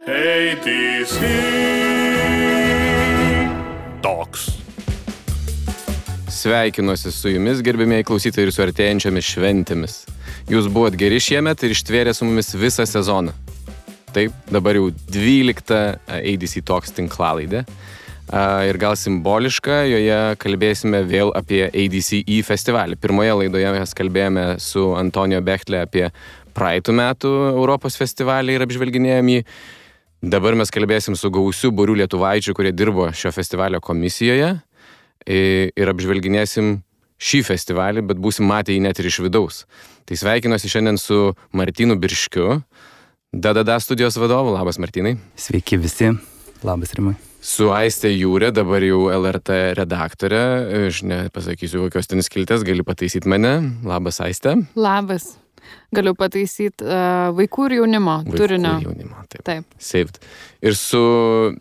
ADC Talks. Sveikinuosi su jumis, gerbimieji klausytojai, ir su artėjančiomis šventėmis. Jūs buvot geri šiemet ir ištvėrė su mumis visą sezoną. Taip, dabar jau 12 ADC Talks tinklalaidė. Ir gal simboliška, joje kalbėsime vėl apie ADCE festivalį. Pirmoje laidoje mes kalbėjome su Antonijo Bechtle apie praeitų metų Europos festivalį ir apžvelginėjom jį. Dabar mes kalbėsim su gausiu būriu lietuvaičių, kurie dirbo šio festivalio komisijoje ir apžvelginėsim šį festivalį, bet būsim matę jį net ir iš vidaus. Tai sveikinuosi šiandien su Martynu Birškiu, DDD studijos vadovu. Labas, Martynai. Sveiki visi. Labas, Rimai. Su Aiste Jūrė, dabar jau LRT redaktorė. Aš nepasakysiu, kokios ten skiltės, gali pataisyti mane. Labas, Aiste. Labas. Galiu pataisyti vaikų ir jaunimo turinio. Vaikų ir jaunimo, taip. Taip. Saved. Ir su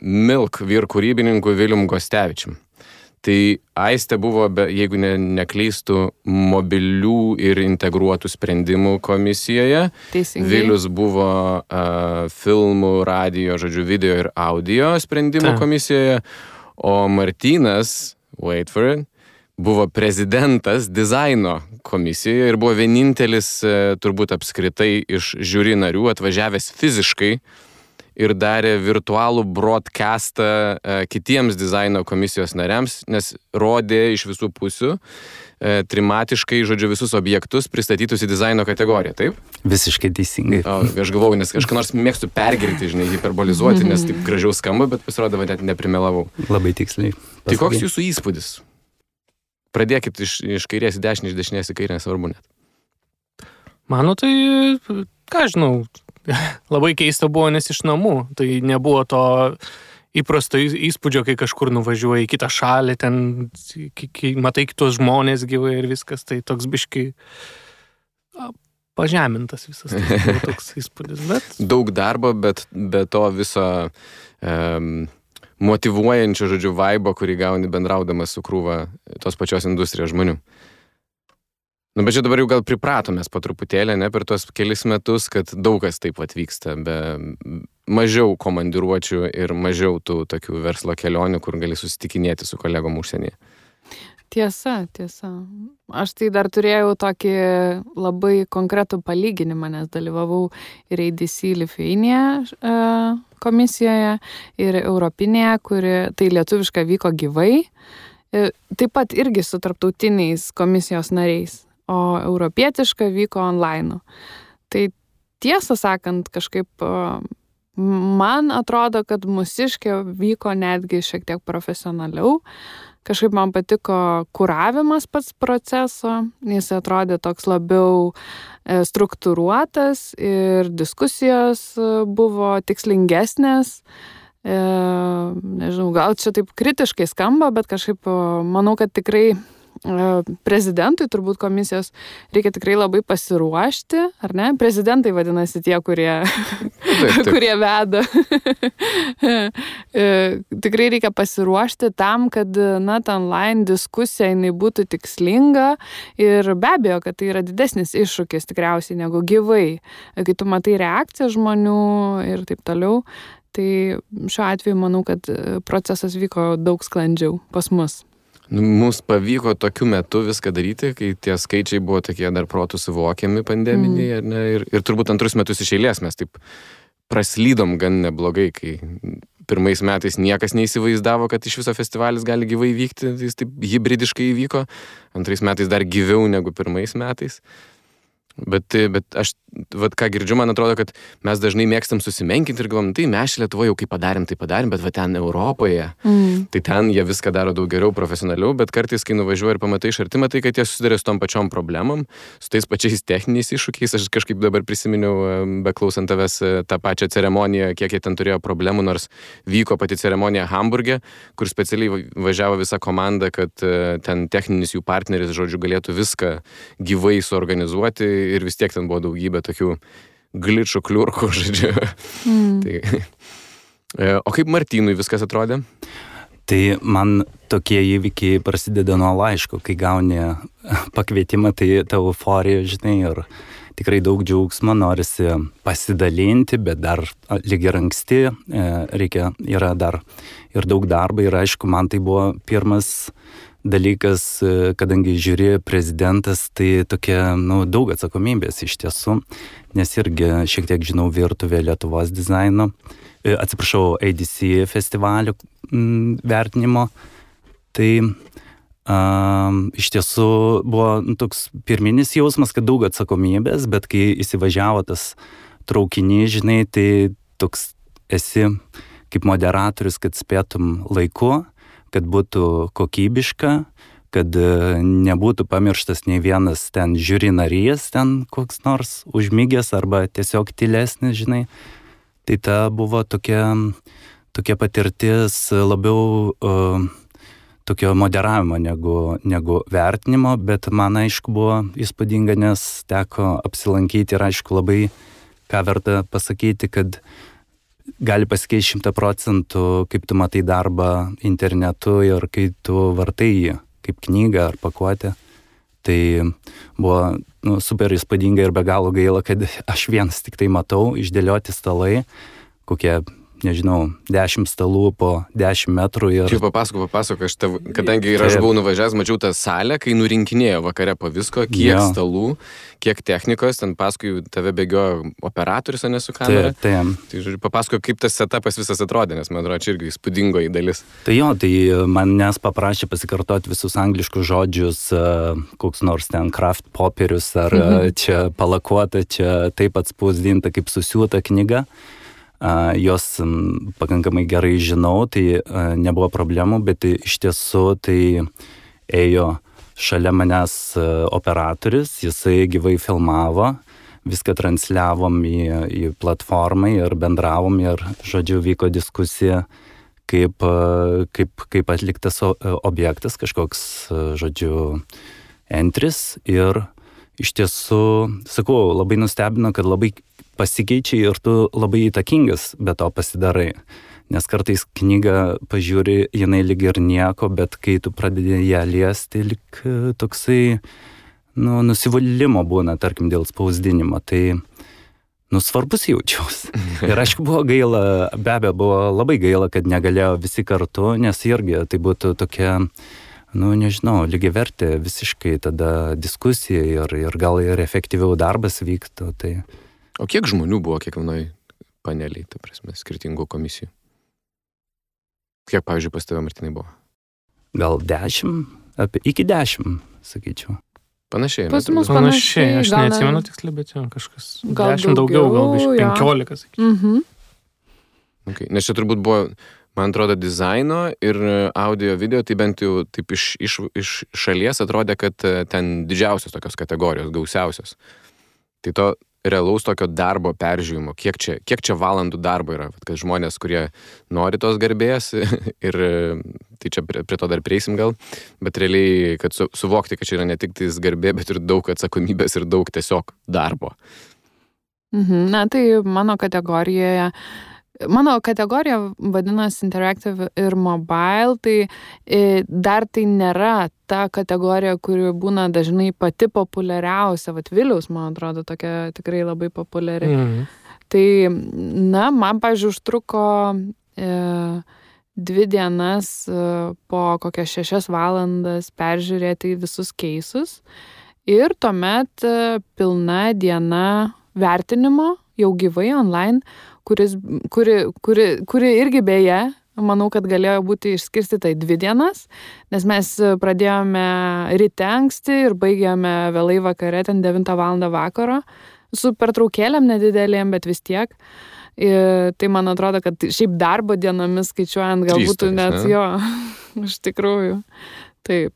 Milk vyr kūrybininku Vilium Gostevičium. Tai Aiste buvo, jeigu nekleistų, mobilių ir integruotų sprendimų komisijoje. Teisingai. Vilius buvo filmų, radijo, video ir audio sprendimų komisijoje. O Martynas, wait for it, buvo prezidentas dizaino komisijoje ir buvo vienintelis turbūt apskritai iš žiuri narių atvažiavęs fiziškai ir darė virtualų broadcastą kitiems dizaino komisijos nariams, nes rodė iš visų pusių trimatiškai, visus objektus pristatytus į dizaino kategoriją, taip? Visiškai teisingai. Aš galvojau, nes kažką nors mėgstu pergirti, hiperbolizuoti, nes taip gražiau skamba, bet pasirodo, net neprimelavau. Labai tiksliai. Tai koks jūsų įspūdis? Pradėkit iš kairės į dešinę, iš dešinės į kairę, nesvarbu net. Mano tai, ką žinau, labai keista buvo, nes iš namų. Tai nebuvo to įprasto įspūdžio, kai kažkur nuvažiuoji į kitą šalį, ten matai kitos žmonės gyvai ir viskas. Tai toks biškai pažemintas visas tai toks įspūdis. Bet... Daug darbo, bet be to viso motyvuojančio, vaibo, kurį gauni bendraudamas su krūva tos pačios industrijos žmonių. Bet čia dabar jau gal pripratomės po truputėlį, per tuos kelis metus, kad daug kas taip atvyksta, be mažiau komandiruočių ir mažiau tų tokių verslo kelionių, kur gali susitikinėti su kolegom užsienyje. Tiesa. Aš tai dar turėjau tokį labai konkretų palyginimą, nes dalyvavau ir ADC Lithuania komisijoje, ir Europinėje, kuri tai lietuviškai vyko gyvai, taip pat irgi su tarptautiniais komisijos nariais. O europietiška vyko online. Tai tiesą sakant, kažkaip man atrodo, kad mūsiškė vyko netgi šiek tiek profesionaliau. Kažkaip man patiko kuravimas pats proceso, jis atrodė toks labiau struktūruotas ir diskusijos buvo tikslingesnės. Nežinau, gal čia taip kritiškai skamba, bet kažkaip manau, kad tikrai prezidentui, turbūt komisijos, reikia tikrai labai pasiruošti, ar ne? Prezidentai vadinasi tie, kurie veda. Tikrai reikia pasiruošti tam, kad ta online diskusija jinai būtų tikslinga ir be abejo, kad tai yra didesnis iššūkis tikriausiai negu gyvai. Kai tu matai reakciją žmonių ir taip toliau, tai šiuo atveju manau, kad procesas vyko daug sklandžiau pas mus. Mums pavyko tokiu metu viską daryti, kai tie skaičiai buvo tokie dar protų suvokiami pandeminiai, ir turbūt antrus metus iš eilės mes taip praslydom gan neblogai, kai pirmais metais niekas neįsivaizdavo, kad iš viso festivalis gali gyvai vykti, jis taip hybridiškai įvyko, antrais metais dar gyviau negu pirmais metais. Bet aš, ką girdžiu, man atrodo, kad mes dažnai mėgstam susimenkinti ir galvom, tai mes Lietuvoje jau kaip padarėm, bet ten Europoje, tai ten jie viską daro daug geriau, profesionaliau, bet kartais, kai nuvažiuoji ir pamatai iš arti, matai, kad jie susiduria su tom pačiom problemom, su tais pačiais techniniais iššūkiais. Aš kažkaip dabar prisiminiau, beklausant tavęs, tą pačią ceremoniją, kiek jie ten turėjo problemų, nors vyko pati ceremonija Hamburge, kur specialiai važiavo visa komanda, kad ten techninis jų partneris, galėtų viską gyvai suorganizuoti. Ir vis tiek ten buvo daugybė tokių gličų, kliurkų, O kaip Martynui viskas atrodė? Tai man tokie įvykiai prasideda nuo laiško, kai gauni pakvietimą, tai ta euforija, ir tikrai daug džiaugsmo, norisi pasidalinti, bet dar lyg ir anksti, yra dar ir daug darbo ir aišku, man tai buvo pirmas dalykas, kadangi žiūri prezidentas, tai tokia, daug atsakomybės iš tiesų, nes irgi šiek tiek žinau virtuvę Lietuvos dizaino, ADC festivalio vertinimo, tai iš tiesų buvo toks pirminis jausmas, kad daug atsakomybės, bet kai įsivažiavo tas traukinys, žinai, tai toks esi kaip moderatorius, kad spėtum laiku, kad būtų kokybiška, kad nebūtų pamirštas nei vienas ten žiūri narys, ten koks nors užmygęs arba tiesiog tylesnis, žinai. Tai ta buvo tokia patirtis labiau tokio moderavimo negu vertinimo, bet man aišku buvo įspūdinga, nes teko apsilankyti ir aišku labai ką verta pasakyti, kad gali pasikeisti 100%, kaip tu matai darbą internetu ir kai tu vartai jį kaip knygą ar pakuotę. Tai buvo super įspūdinga ir be galo gaila, kad aš vienas tik tai matau, išdėlioti stalai, kokie, nežinau, 10 stalų po 10 metrų. Ir... Čia papasakok, kadangi ir aš buvau nuvažiavęs, mačiau tą salę, kai nurinkinėjo vakare po visko, kiek stalų, kiek technikos, ten paskui tave bėgiojo operatorius, o ne su kamera. Tai papasakok, kaip tas setupas visas atrodė, nes man atrodo, čia irgi įspūdingoji dalis. Tai manęs paprašė pasikartoti visus angliškus žodžius, koks nors ten kraft popierius, ar čia palakuota, čia taip atspausdinta, kaip susiūta knyga. Jos pakankamai gerai žinau, tai nebuvo problemų, bet iš tiesų tai ėjo šalia manęs operatorius, jisai gyvai filmavo, viską transliavom į platformą ir bendravom ir, žodžiu, vyko diskusija, kaip atliktas objektas, kažkoks, žodžiu, entris ir iš tiesų, sakau, labai nustebino, kad labai pasikeičia ir tu labai įtakingas be to pasidarai. Nes kartais knygą pažiūri, jinai lyg ir nieko, bet kai tu pradedi ją liesti, lyg toksai, nusivylimo būna, tarkim, dėl spausdinimo. Tai, svarbus jaučiausi. Ir aišku, buvo gaila, be abejo, buvo labai gaila, kad negalėjo visi kartu, nes irgi tai būtų tokia, nežinau, lygiavertė visiškai tada diskusija ir gal ir efektyviau darbas vyktų. Tai... O kiek žmonių buvo kiekvienoj paneliai, ta prasme, skirtingų komisijų? Kiek, pavyzdžiui, pas tave, Martinai, buvo? Gal 10, iki 10, sakyčiau. Panašiai. Pas mus panašiai, aš neatsimenu tiksliai, bet kažkas gal 10 daugiau, gal 15, sakyčiau. Okay. Nes čia turbūt buvo, man atrodo, dizaino ir audio video, tai bent jau taip iš šalies atrodė, kad ten didžiausios tokios kategorijos, gausiausios. Tai to realaus tokio darbo peržiūrimo, kiek čia valandų darbo yra, kad žmonės, kurie nori tos garbės ir tai čia prie to dar prieisim gal, bet realiai, kad suvokti, kad čia yra ne tik tais garbė, bet ir daug atsakomybės ir daug tiesiog darbo. Na, tai mano kategorija vadinasi Interactive ir Mobile, tai dar tai nėra ta kategorija, kuri būna dažnai pati populiariausia. Vat Viliaus, man atrodo, tokia tikrai labai populiari. Tai, man, pavyzdžiui, užtruko 2 dienas po kokias 6 valandas peržiūrėti visus keisus ir tuomet pilna diena vertinimo jau gyvai online, kuri irgi beje, manau, kad galėjo būti išskirstyta į 2 dienas, nes mes pradėjome ryte anksti ir baigėme vėlai vakare, ten 9 valandą vakaro, su pertraukėlėm nedidelėm, bet vis tiek. Ir tai man atrodo, kad šiaip darbo dienomis skaičiuojant gal būtų net jo, iš tikrųjų. Taip,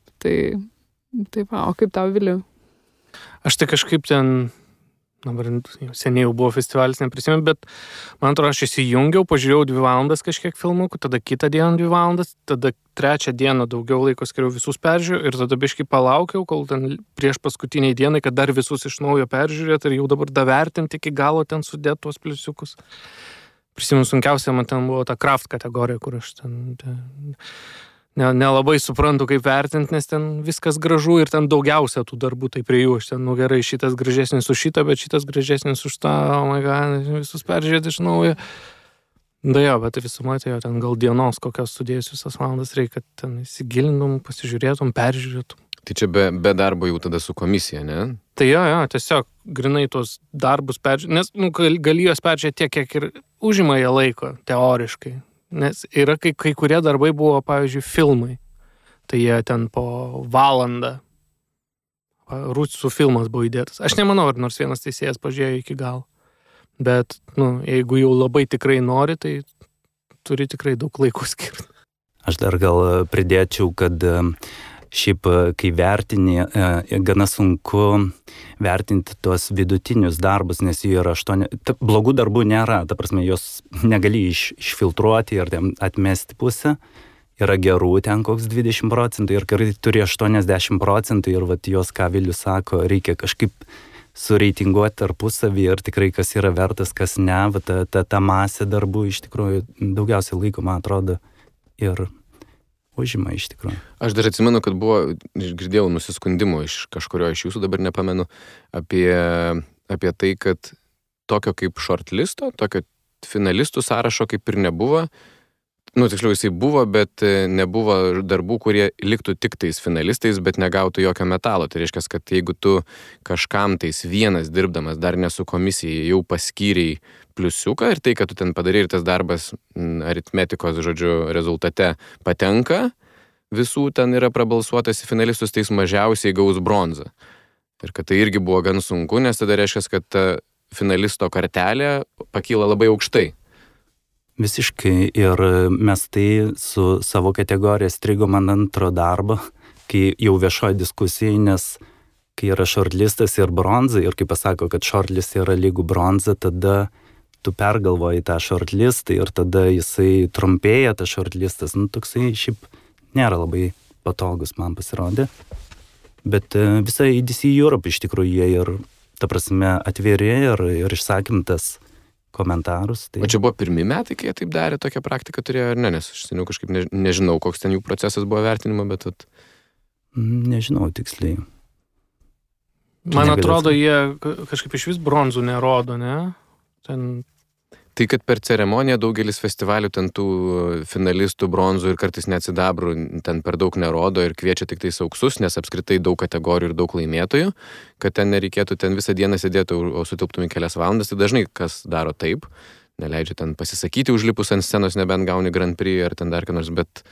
o kaip tau, Viliu? Aš tai kažkaip ten... Dabar seniai jau buvo festivalis, neprisimenu, bet man atrodo, aš įsijungiau, pažiūrėjau 2 valandas kažkiek filmukų, tada kitą dieną 2 valandas, tada 3 dieną daugiau laiko skiriau visus peržiūrėjau ir tada biškai palaukiau, kol ten prieš paskutiniai dienai, kad dar visus iš naujo peržiūrėt ir jau dabar davertinti iki galo ten sudėt tuos pliusiukus. Prisimenu, sunkiausia man ten buvo ta craft kategorija, kur aš ten nelabai suprantu, kaip vertinti, nes ten viskas gražu ir ten daugiausia tų darbų, tai prie jų aš ten, gerai, šitas gražesnis už šitą, bet šitas gražesnis už tą, oh my god, visus peržiūrėti iš naujo. Da jo, bet visumai tai jo ten gal dienos kokios sudėjus visas valandas reikia, kad ten įsigilintum, pasižiūrėtum, peržiūrėtum. Tai čia be darbo jau tada su komisija, ne? Tai jo, tiesiog grinai tos darbus peržiūrėti, nes gali juos peržiūrėti tiek, kiek ir užima jie laiko, teoriškai. Nes yra kai kurie darbai buvo, pavyzdžiui, filmai. Tai jie ten po valandą Rusų filmas buvo įdėtas. Aš nemanau, ar nors vienas teisėjas pažiūrėjo iki galo. Bet, jeigu jau labai tikrai nori, tai turi tikrai daug laiko skirti. Aš dar gal pridėčiau, kad šiaip, kai vertini, gana sunku vertinti tuos vidutinius darbus, nes jų yra 8. Blogų darbų nėra, ta prasme, jos negali išfiltruoti ir atmesti pusę. Yra gerų ten koks 20% ir kai turi 80% ir vat jos, ką Vilius sako, reikia kažkaip sureitinguoti tarpusavį ir tikrai kas yra vertas, kas ne, ta masė darbų iš tikrųjų daugiausiai laiko, man atrodo, ir užima iš tikrųjų. Aš dar atsimenu, kad girdėjau nusiskundimų iš kažkurio iš jūsų, dabar nepamenu, apie tai, kad tokio kaip shortlisto, tokio finalistų sąrašo kaip ir nebuvo. Tiksliau, jisai buvo, bet nebuvo darbų, kurie liktų tik tais finalistais, bet negautų jokio metalo. Tai reiškia, kad jeigu tu kažkam tais vienas dirbdamas, dar ne su komisija, jau paskyrei pliusiuką ir tai, kad tu ten padarai ir tas darbas aritmetikos, rezultate patenka, visų ten yra prabalsuotas į finalistus, tai jis mažiausiai gaus bronzą. Ir kad tai irgi buvo gan sunku, nes tada reiškia, kad ta finalisto kartelė pakyla labai aukštai. Visiškai, ir mes tai su savo kategorija strigom ant antro darbo, kai jau viešoji diskusija, nes kai yra shortlistas ir bronza, ir kai pasako, kad shortlist yra lygų bronza, tada tu pergalvoji tą shortlistą ir tada jisai trumpėja, tas shortlistas, toksai šiaip nėra labai patogus, man pasirodė. Bet visa EDC Europe iš tikrųjų jie ir, ta prasme, atviri ir išsakym tas komentarus. Tai... O čia buvo pirmi metai, kai jie taip darė, tokią praktiką turėjo ar ne, nes aš seniau kažkaip nežinau, koks ten jų procesas buvo vertinimo, bet... Nežinau tiksliai. Man atrodo, jie kažkaip iš vis bronzų nerodo, ne? Tai, kad per ceremoniją daugelis festivalių ten tų finalistų bronzų ir kartais net sidabrų ten per daug nerodo ir kviečia tik tais auksus, nes apskritai daug kategorijų ir daug laimėtojų, kad ten nereikėtų ten visą dieną sėdėti, o sutilptum į kelias valandas, tai dažnai kas daro taip, neleidžia ten pasisakyti užlipus ant scenos, nebent gauni Grand Prix ar ten dar ką nors, bet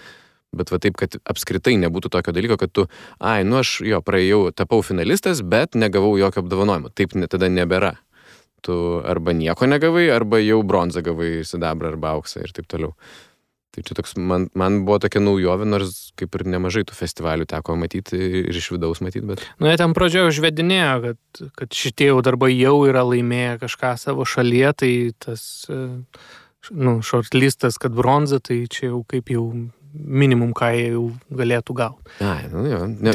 va taip, kad apskritai nebūtų tokio dalyko, kad tu, aš praėjau, tapau finalistas, bet negavau jokio apdovanojimo. Taip tada nebėra. Tu arba nieko negavai, arba jau bronzą gavai, sidabrą arba auksą ir taip toliau. Tai čia toks, man buvo tokia naujovė, nors kaip ir nemažai tų festivalių teko matyti ir iš vidaus matyti, bet... Jie ten pradžioje užvedinėjo, kad šitie jau darbai jau yra laimėję kažką savo šalyje, tai tas, shortlistas, kad bronza, tai čia jau kaip jau minimum, ką jie jau galėtų gauti.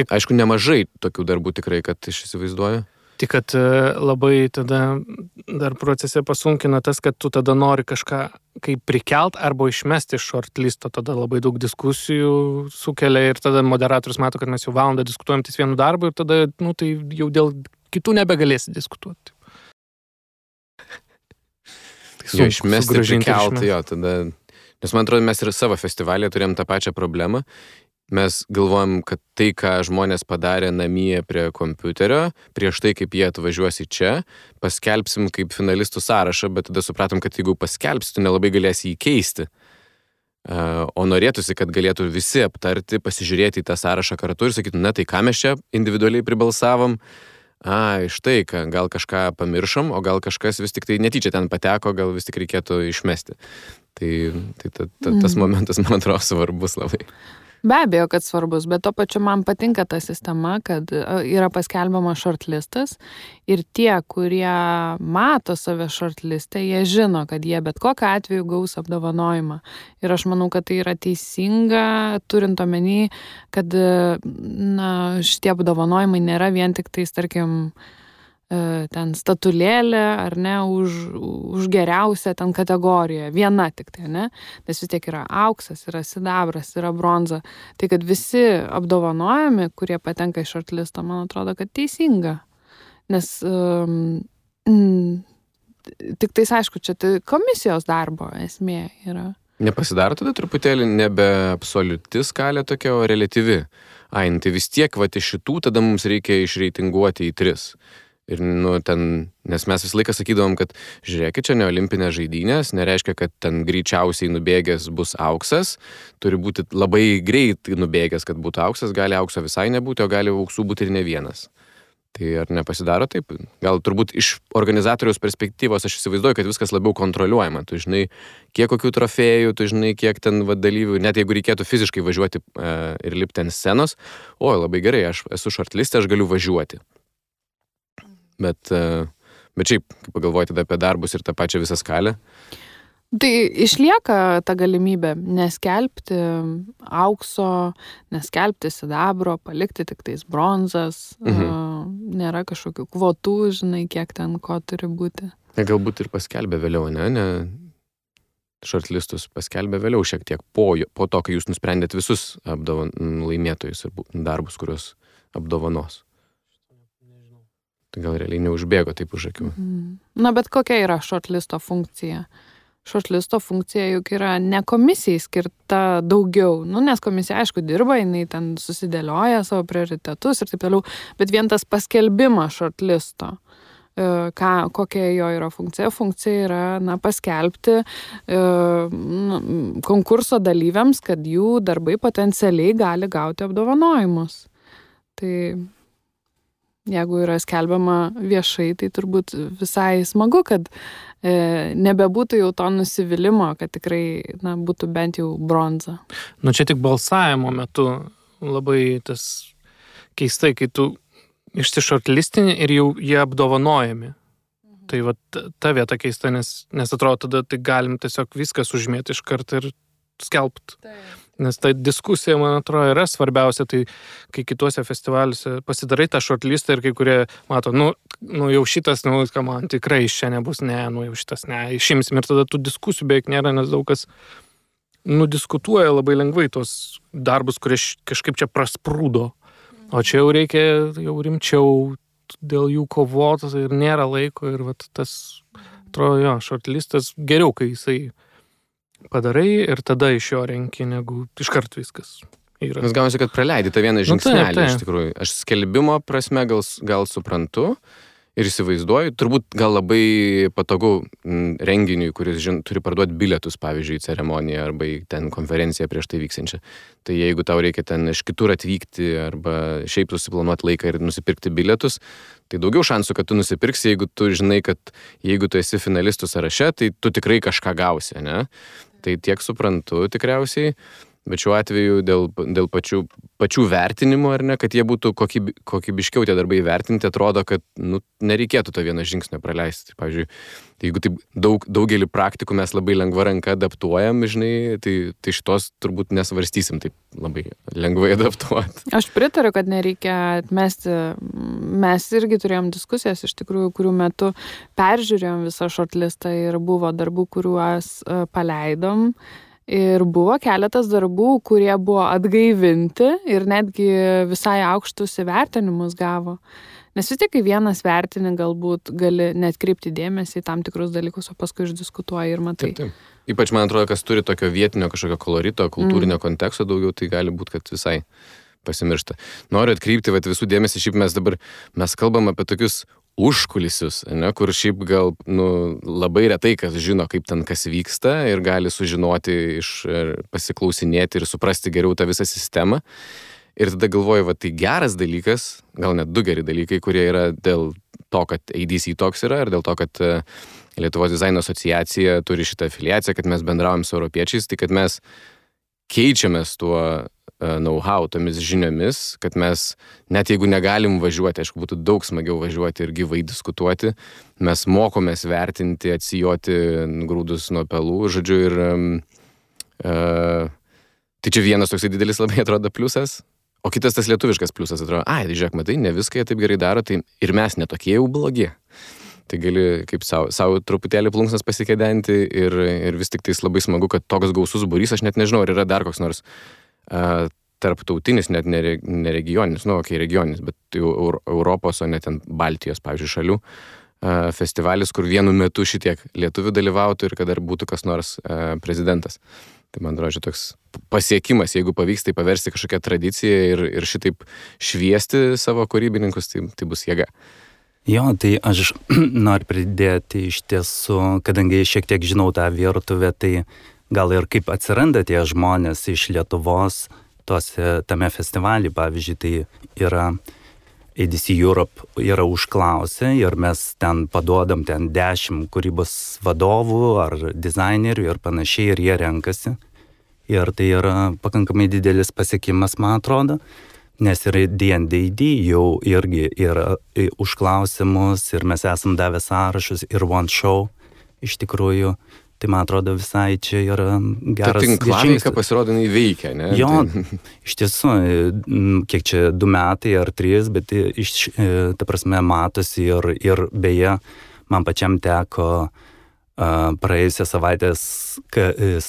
Aišku, nemažai tokių darbų tikrai, kad aš įsivaizduoju. Tik, kad labai tada dar procese pasunkina tas, kad tu tada nori kažką kaip prikelt arba išmesti iš shortlisto, tada labai daug diskusijų sukelia ir tada moderatorius mato, kad mes jau valandą diskutuojam ties vienu darbu ir tada, tai jau dėl kitų nebegalėsi diskutuoti. Išmesti, prikelt, tada... Nes man atrodo, mes ir savo festivalėje turėjom tą pačią problemą. Mes galvojam, kad tai, ką žmonės padarė namie prie kompiuterio, prieš tai, kaip jie atvažiuos į čia, paskelbsim kaip finalistų sąrašą, bet tada supratom, kad jeigu paskelbsi, tu nelabai galėsi jį keisti. O norėtųsi, kad galėtų visi aptarti, pasižiūrėti į tą sąrašą kartu ir sakyti, tai ką mes čia individualiai pribalsavom, štai, gal kažką pamiršom, o gal kažkas vis tik tai netyčia ten pateko, gal vis tik reikėtų išmesti. Tai tas momentas, man atrodo, svarbus labai. Be abejo, kad svarbus, bet to pačiu man patinka ta sistema, kad yra paskelbiama shortlistas ir tie, kurie mato save shortlistę, jie žino, kad jie bet kokiu atveju gaus apdovanojimą. Ir aš manau, kad tai yra teisinga, turint omeny, kad šitie apdovanojimai nėra vien tik tais, tarkim, ten statulėlė, ar ne, už geriausią ten kategoriją. Viena tik tai, ne? Nes vis tiek yra auksas, yra sidabras, yra bronza. Tai kad visi apdovanojami, kurie patenka į shortlistą, man atrodo, kad teisinga. Nes tik tais, aišku, čia tai komisijos darbo esmė yra. Nepasidaro tada truputėlį nebe absoliuti skalė tokia, o reliatyvi. Tai vis tiek, iš šitų tada mums reikia išreitinguoti į 3. Ir, nes mes visą laiką sakydavom, kad žiūrėkit, čia ne olimpinės žaidynės, nereiškia, kad ten greičiausiai nubėgęs bus auksas, turi būti labai greit nubėgęs, kad būtų auksas, gali aukso visai nebūti, o gali auksų būti ir ne vienas. Tai ar nepasidaro taip? Gal turbūt iš organizatoriaus perspektyvos aš įsivaizduoju, kad viskas labiau kontroliuojama. Tu žinai, kiek kokių trofėjų, tu žinai, kiek ten dalyvių, net jeigu reikėtų fiziškai važiuoti ir lipti ant scenos, labai gerai, aš esu shortliste, aš galiu važiuoti. Bet šiaip, kaip pagalvoti tada apie darbus ir tą pačią visą skalę? Tai išlieka ta galimybė neskelbti aukso, neskelbti sidabro, palikti tik tais bronzas, nėra kažkokių kvotų, žinai, kiek ten ko turi būti. Galbūt ir paskelbė vėliau, ne? Shortlistus paskelbė vėliau šiek tiek po to, kai jūs nusprendėt visus laimėtojus ir darbus, kuriuos apdovanos. Tai gal realiai neužbėgo taip už akių. Na, bet kokia yra shortlisto funkcija? Shortlisto funkcija juk yra ne komisijai skirta daugiau, nes komisija, aišku, dirba, jinai ten susidėlioja savo prioritetus ir taip toliau, bet vien tas paskelbimas shortlisto, kokia jo yra funkcija? Funkcija yra, paskelbti konkurso dalyviams, kad jų darbai potencialiai gali gauti apdovanojimus. Tai jeigu yra skelbiama viešai, tai turbūt visai smagu, kad nebebūtų jau to nusivylimų, kad tikrai būtų bent jau bronza. Čia tik balsavimo metu labai tas keistai, kai tu išsišortlistini ir jau jie apdovanojami. Tai ta vieta keista, nes atrodo, tada tai galim tiesiog viskas užmėti iš karto ir skelbti. Nes ta diskusija, man atrodo, yra svarbiausia, tai kai kituose festivaliuose pasidarai tą shortlistą ir kai kurie mato, jau šitas, man tikrai iš čia nebus, jau šitas, išimsim ir tada tų diskusijų beveik nėra, nes daug kas diskutuoja labai lengvai tos darbus, kurie kažkaip čia prasprūdo. O čia jau reikia jau rimčiau dėl jų kovoti ir nėra laiko ir tas, atrodo, shortlistas geriau, kai jisai padarai ir tada iš jo renki, negu iškart viskas yra. Nes gaunasi, kad praleidi tą vieną žingsnelį, iš tikrųjų. Aš skelbimo prasme gal suprantu ir įsivaizduoju, turbūt gal labai patogu renginiui, kuris turi parduoti bilietus, pavyzdžiui, į ceremoniją arba į ten konferenciją prieš tai vyksančią. Tai jeigu tau reikia ten iš kitur atvykti arba šiaip susiplanuoti laiką ir nusipirkti bilietus, tai daugiau šansų, kad tu nusipirksi, jeigu tu žinai, kad jeigu tu esi finalistų sąraše, tai tu tikrai kažką gausi, ne? Tai tiek suprantu tikriausiai, bet šiuo atveju dėl pačių vertinimų, ar ne, kad jie būtų kokybiškiau tie darbai vertinti, atrodo, kad nereikėtų to vieno žingsnio praleisti. Pavyzdžiui, jeigu taip daugelį praktikų mes labai lengva ranka adaptuojam, žinai, tai šitos turbūt nesvarstysim taip labai lengvai adaptuoti. Aš pritariu, kad nereikia atmesti. Mes irgi turėjom diskusijas, iš tikrųjų, kurių metu peržiūrėjom visą shortlistą ir buvo darbų, kuriuos paleidom. Ir buvo keletas darbų, kurie buvo atgaivinti ir netgi visai aukštus įvertinimus gavo. Nes vis tiek, kai vienas vertini, galbūt gali net kreipti dėmesį į tam tikrus dalykus, o paskui išdiskutuoji ir matai. Taip. Ypač, man atrodo, kas turi tokio vietinio kažkokio kolorito, kultūrinio konteksto daugiau, tai gali būti, kad visai pasimiršta. Noriu atkreipti visų dėmesį, šiaip mes kalbam apie tokius užkulisius, ne, kur šiaip gal labai retai kas žino, kaip ten kas vyksta ir gali sužinoti, pasiklausinėti ir suprasti geriau tą visą sistemą. Ir tada galvoju, tai geras dalykas, gal net 2 geri dalykai, kurie yra dėl to, kad ADC toks yra ir dėl to, kad Lietuvos dizaino asociacija turi šitą afiliaciją, kad mes bendraujam su europiečiais, tai kad mes keičiamės tuo know-how, tomis žiniomis, kad mes, net jeigu negalim važiuoti, aišku, būtų daug smagiau važiuoti ir gyvai diskutuoti, mes mokomės vertinti, atsijoti grūdus nuo pelų, žodžiu, ir tai čia vienas toksai didelis labai atrodo pliusas, O kitas tas lietuviškas pliusas atrodo, žiūrėk, matai, ne viską jie taip gerai daro, tai ir mes netokie jau blogi. Tai gali kaip savo truputėlį plunksnas pasikėdenti ir vis tik tais labai smagu, kad toks gausus būrys, aš net nežinau, ar yra dar koks nors tarptautinis, net neregioninis, regioninis, bet jau Europos, o net ten Baltijos, pavyzdžiui, šalių festivalis, kur vienu metu šitiek lietuvių dalyvautų ir kad dar būtų kas nors prezidentas. Tai man atrodo, toks pasiekimas, jeigu pavyks tai paversti kažkokią tradiciją ir šitaip šviesti savo kūrybininkus, tai bus jėga. Jo, tai aš noriu pridėti iš tiesų, kadangi šiek tiek žinau tą virtuvę, tai gal ir kaip atsiranda tie žmonės iš Lietuvos tame festivalį, pavyzdžiui, tai yra ADC Europe yra užklausę ir mes ten paduodam 10 kūrybos vadovų ar dizainerių ir panašiai ir jie renkasi. Ir tai yra pakankamai didelis pasiekimas, man atrodo, nes ir D&D jau irgi yra užklausimus ir mes esam davę sąrašus ir One Show iš tikrųjų. Tai man atrodo visai čia yra geras žingsnis. Ta tinklaveika pasirodo veikia, ne? Jo, iš tiesų, kiek čia 2 metai ar 3, bet ta prasme matosi ir beje, man pačiam teko praėjusią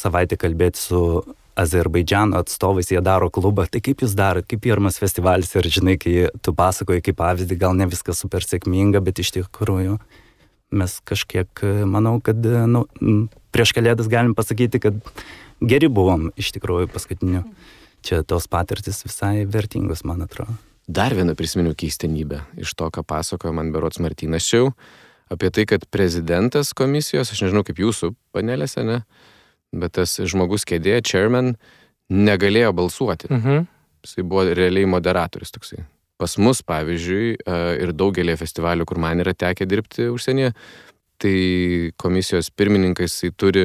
savaitę kalbėti su Azerbaidžano atstovais, jie daro klubą. Tai kaip jūs darot, kaip pirmas festivalis ir žinai, kai tu pasakoji kaip pavyzdį, gal ne viskas super sėkminga, bet iš tikrųjų mes kažkiek, manau, kad prieš Kalėdas galim pasakyti, kad geri buvom iš tikrųjų paskutiniu. Čia tos patirtis visai vertingos, man atrodo. Dar vieną prisiminiau keistenybę iš to, ką pasakojo man berods Martynas Šiau, apie tai, kad prezidentas komisijos, aš nežinau kaip jūsų panelėse, ne, bet tas žmogus kėdė, chairman, negalėjo balsuoti. Jisai buvo realiai moderatorius toksai. Pas mus, pavyzdžiui, ir daugelį festivalių, kur man yra tekę dirbti užsienyje, tai komisijos pirmininkas turi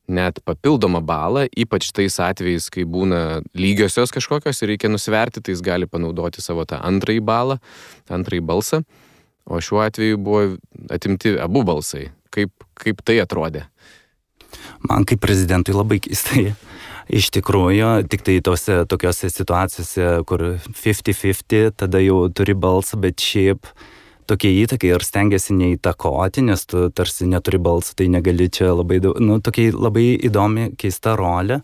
net papildomą balą, ypač tais atvejais, kai būna lygiosios kažkokios ir reikia nusverti, tai jis gali panaudoti savo tą antrąjį balą, antrąjį balsą. O šiuo atveju buvo atimti abu balsai. Kaip tai atrodė? Man kaip prezidentui labai keistai. Iš tikrųjų, tik tai tokiose situacijose, kur 50-50, tada jau turi balsą, bet šiaip tokie įtakai ir stengiasi neįtakoti, nes tu tarsi neturi balsą, tai negali čia labai daug, tokia labai įdomi, keista rolė.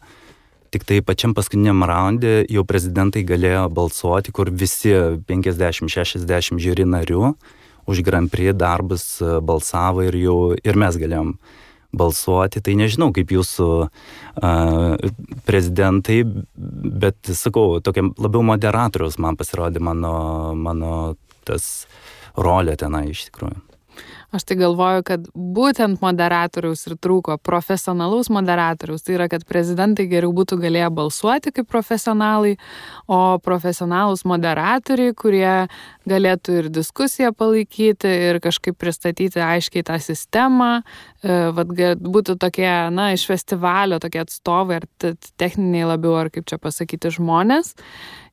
Tik tai pačiam paskutiniam raunde jau prezidentai galėjo balsuoti, kur visi 50-60 žiūri narių už Grand Prix darbus balsavo ir mes galėjom balsuoti. Tai nežinau, kaip jūsų prezidentai, bet sakau, tokia labiau moderatoriaus man pasirodė mano tas rolė tenai iš tikrųjų. Aš tai galvoju, kad būtent moderatoriaus ir trūko, profesionalaus moderatoriaus. Tai yra, kad prezidentai geriau būtų galėję balsuoti kaip profesionalai, o profesionalus moderatoriai, kurie galėtų ir diskusiją palaikyti, ir kažkaip pristatyti aiškiai tą sistemą, būtų tokie, iš festivalio tokie atstovai, ar techniniai labiau, ar kaip čia pasakyti, žmonės.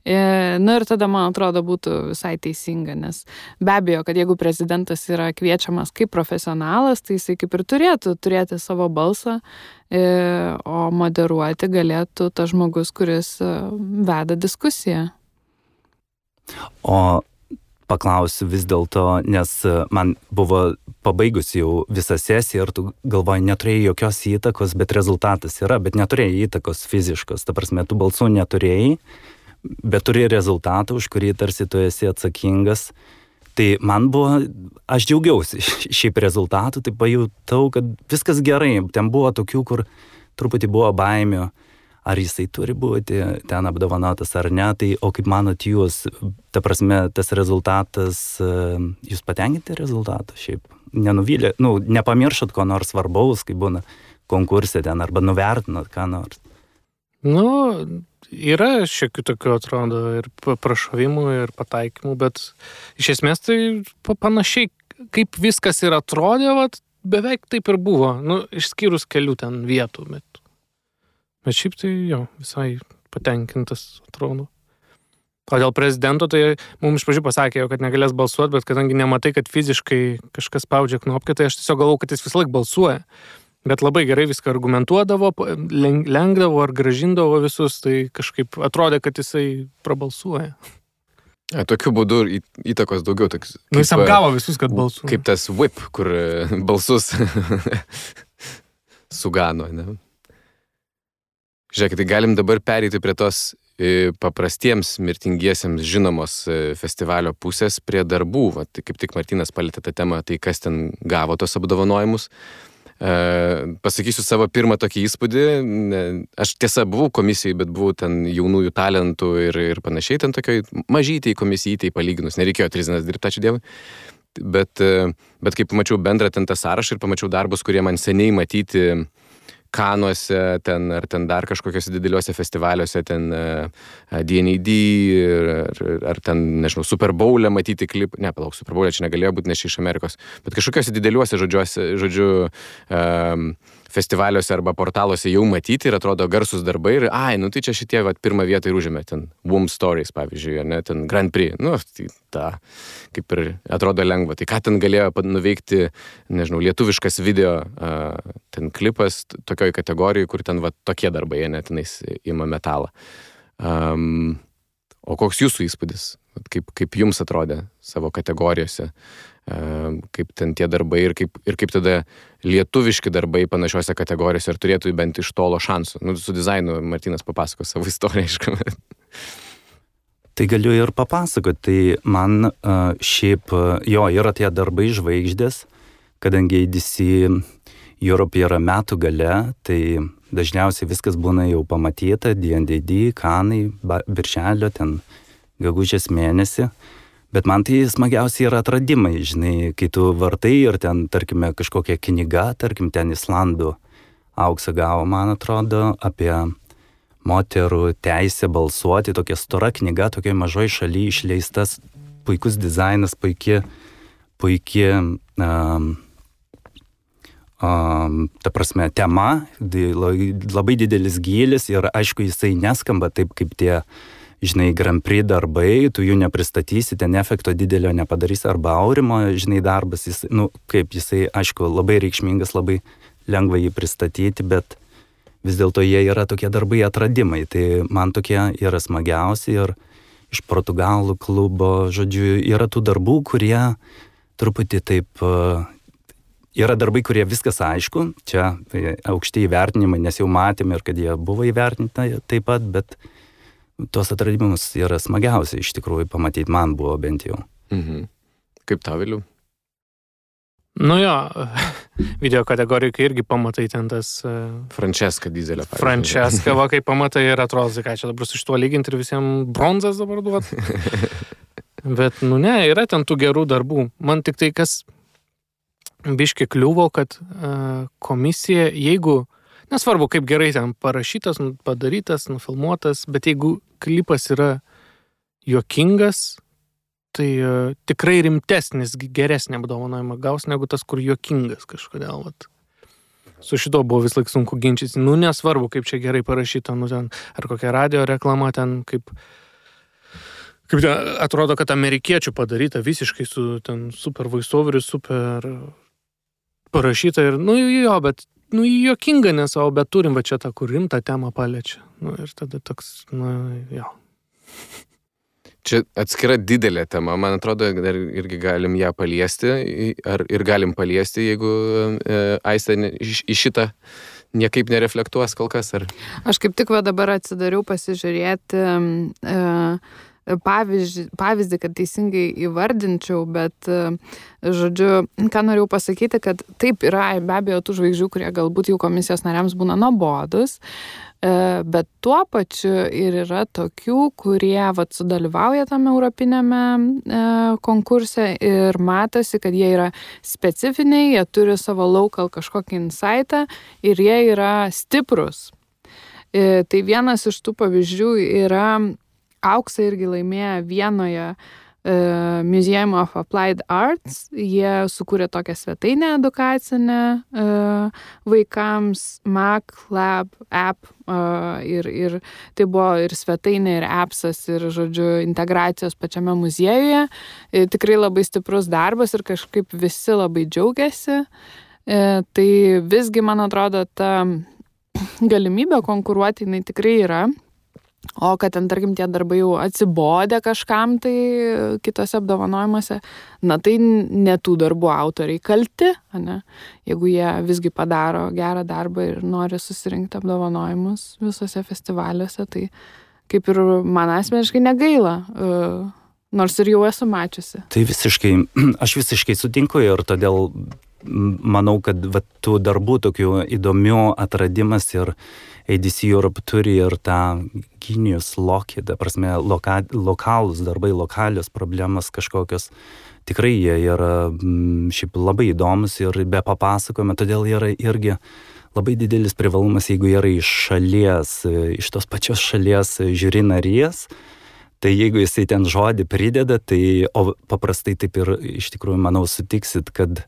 Ir tada, man atrodo, būtų visai teisinga, nes be abejo, kad jeigu prezidentas yra kviečiamas kaip profesionalas, tai jisai kaip ir turėtų turėti savo balsą, o moderuoti galėtų tas žmogus, kuris veda diskusiją. O paklausiu vis dėlto, nes man buvo pabaigus jau visą sesiją ir tu galvoji, neturėjai jokios įtakos, bet rezultatas yra, bet neturėjai įtakos fiziškos, ta prasme, tu balsų neturėjai, bet turi rezultatą, už kurį tarsi tu esi atsakingas. Tai man buvo, aš džiaugiausi šiaip rezultatų, tai pajutau, kad viskas gerai. Ten buvo tokių, kur truputį buvo baimių, ar jisai turi būti ten apdovanotas ar ne. Tai, o kaip manot jūs, ta prasme, tas rezultatas, jūs patenkinti rezultatą šiaip? Nenuvylė, nepamiršot ko nors svarbaus, kai būna konkursė ten, arba nuvertinat ką nors? Yra šiokių tokių, atrodo, ir prašovimų, ir pataikymų, bet iš esmės tai panašiai, kaip viskas ir atrodė, beveik taip ir buvo, išskyrus kelių ten vietų, bet šiaip tai visai patenkintas atrodo. O dėl prezidento, tai mums iš pradžių pasakė, kad negalės balsuoti, bet kadangi nematai, kad fiziškai kažkas spaudžia knopkę, tai aš tiesiog galvau, kad jis vis laik balsuoja. Bet labai gerai viską argumentuodavo, lenkdavo ar gražindavo visus, tai kažkaip atrodė, kad jisai prabalsuoja. Tokiu būdu įtakos daugiau. Toks, Jis apgavo visus, kad balsuoja. Kaip tas whip, kur balsus sugano. Ne? Žiūrėkit, tai galim dabar pereiti prie tos paprastiems mirtingiesiems žinomos festivalio pusės prie darbų. Va, tai kaip tik Martynas palietė tą temą, tai kas ten gavo tos apdovanojimus. Pasakysiu savo pirmą tokį įspūdį. Aš tiesa buvau komisijoje, bet buvau ten jaunųjų talentų ir panašiai, ten tokioj mažytėj komisijai palyginus. Nereikėjo 3 dienas dirbti, ačiū Dievui. Bet kai pamačiau bendrą ten tą sąrašą ir pamačiau darbus, kurie man seniai matyti Kanuose, ten, ar ten dar kažkokiuose dideliuose festivaliuose, ten D&AD, ar ten, nežinau, Super Bowl'e matyti klip, palauk, Super Bowl'e čia negalėjo būti, nes iš Amerikos, bet kažkokiuose dideliuose žodžiu, festivaliuose arba portaluose jau matyti ir atrodo garsus darbai ir, tai čia šitie, pirmą vietą ir užėmė, ten Womb Stories, pavyzdžiui, ne, ten Grand Prix, tai ta, kaip ir atrodo lengva, tai ką ten galėjo nuveikti, nežinau, lietuviškas video, ten klipas tokioj kategorijai, kur ten tokie darbai, ne, tenais ima metalą. O koks jūsų įspūdis? Kaip jums atrodė savo kategorijose? Kaip ten tie darbai ir kaip tada lietuviški darbai panašiose kategorijose ir turėtų bent iš tolo šansų. Su dizainu Martynas papasako savo istoriją, aišku. Tai galiu ir papasakoti. Tai man šiaip, yra tie darbai žvaigždės, kadangi ADC Europe yra metų gale, tai dažniausiai viskas būna jau pamatyta, D&AD, Kanai, birželio, ten gegužės mėnesį. Bet man tai smagiausiai yra atradimai, žinai, kai tu vartai ir ten, tarkime, kažkokia knyga, tarkim, ten Islandų auksą gavo, man atrodo, apie moterų teisę balsuoti, tokia stora knyga, tokioj mažoj šaly išleistas, puikus dizainas, puikia, ta prasme, tema, labai didelis gylis ir aišku, jisai neskamba taip, kaip tie, žinai, Grand Prix darbai, tu jų nepristatysi, ten efekto didelio nepadarysi, arba Aurimo, žinai, darbas, jisai, aišku, labai reikšmingas, labai lengva jį pristatyti, bet vis dėlto jie yra tokie darbai atradimai, tai man tokie yra smagiausi ir iš Portugalų klubo, žodžiu, yra tų darbų, kurie truputį taip, yra darbai, kurie viskas aišku, čia aukšti įvertinimai, nes jau matėme ir kad jie buvo įvertinti taip pat, bet tuos atradimus yra smagiausia iš tikrųjų pamatyti, man buvo bent jau. Mhm. Kaip tau, Viliau? Video kategorijai, kai irgi pamatai ten tas... Francesca Dizelio. Francesca, kai pamatai ir atrodo, ką čia dabar su šituo lyginti ir visiems bronzas dabar duot. Bet, yra ten tų gerų darbų. Man tik tai, kas biški kliuvo, kad komisija, jeigu... Nesvarbu, kaip gerai ten parašytas, padarytas, nufilmuotas, bet jeigu klipas yra juokingas, tai tikrai rimtesnis, geresnį apdovanojimą gaus, negu tas, kur juokingas kažkodėl. Su šito buvo vis laik sunku ginčyti. Nesvarbu, kaip čia gerai parašyta, ten, ar kokia radio reklama ten, kaip ten, atrodo, kad amerikiečių padaryta visiškai su ten super voiceoveriu, super parašyta ir, bet juokinga nes, bet turim čia tą, kur rimtą temą paliečia. Ir tada toks, Čia atskira didelė tema, man atrodo, dar irgi galim ją paliesti, ir galim paliesti, jeigu Aistė į šitą niekaip nereflektuos kol kas, ar... Aš kaip tik dabar atsidariau pasižiūrėti pavyzdį, kad teisingai įvardinčiau, bet, žodžiu, ką norėjau pasakyti, kad taip yra be abejo tų žvaigždžių, kurie galbūt jau komisijos nariams būna nuobodus, bet tuo pačiu ir yra tokių, kurie sudalyvauja tame europinėme konkurse ir matosi, kad jie yra specifiniai, jie turi savo local kažkokį insightą ir jie yra stiprus. Tai vienas iš tų pavyzdžių yra auksą irgi laimėjo Vienoje Museum of Applied Arts. Jie sukūrė tokią svetainę edukacinę vaikams, Mac Lab app, ir tai buvo ir svetainė, ir appsas, ir, žodžiu, integracijos pačiame muziejuje. Tikrai labai stiprus darbas ir kažkaip visi labai džiaugiasi. Tai visgi, man atrodo, ta galimybė konkuruoti, jinai tikrai yra. O kad ten, tarkim, tie darbai jau atsibodė kažkam tai kitose apdovanojimuose, na tai ne tų darbų autoriai kalti, ne? Jeigu jie visgi padaro gerą darbą ir nori susirinkti apdovanojimus visose festivaliuose, tai kaip ir man asmeniškai negaila, nors ir jau esu mačiusi. Tai aš visiškai sutinku ir todėl manau, kad tų darbų tokių įdomių atradimas ir ADC Europe turi ir tą genius loci, ta prasme, lokalūs darbai, lokalios problemas kažkokios. Tikrai jie yra šiaip labai įdomus ir be papasakojimo, todėl yra irgi labai didelis privalumas, jeigu yra iš šalies, iš tos pačios šalies žiūri narės. Tai jeigu jisai ten žodį prideda, tai o paprastai taip ir iš tikrųjų, manau, sutiksit, kad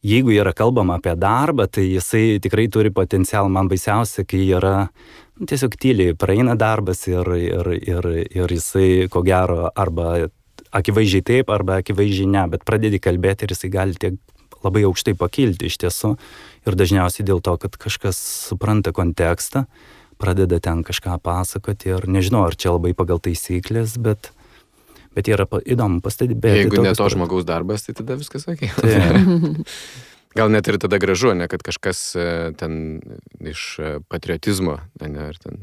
jeigu yra kalbama apie darbą, tai jisai tikrai turi potencialą. Man baisiausia, kai yra tiesiog tyliai praeina darbas ir jisai, ko gero, arba akivaizdžiai taip, arba akivaizdžiai ne, bet pradedi kalbėti ir jisai gali tiek labai aukštai pakilti iš tiesų. Ir dažniausiai dėl to, kad kažkas supranta kontekstą, pradeda ten kažką pasakoti ir nežinau, ar čia labai pagal taisyklės, bet yra įdomu pastebėti. Jeigu ne to žmogaus darbas, tai tada viskas okei. Gal net ir tada gražu, ne, kad kažkas ten iš patriotizmo, ne, ar ten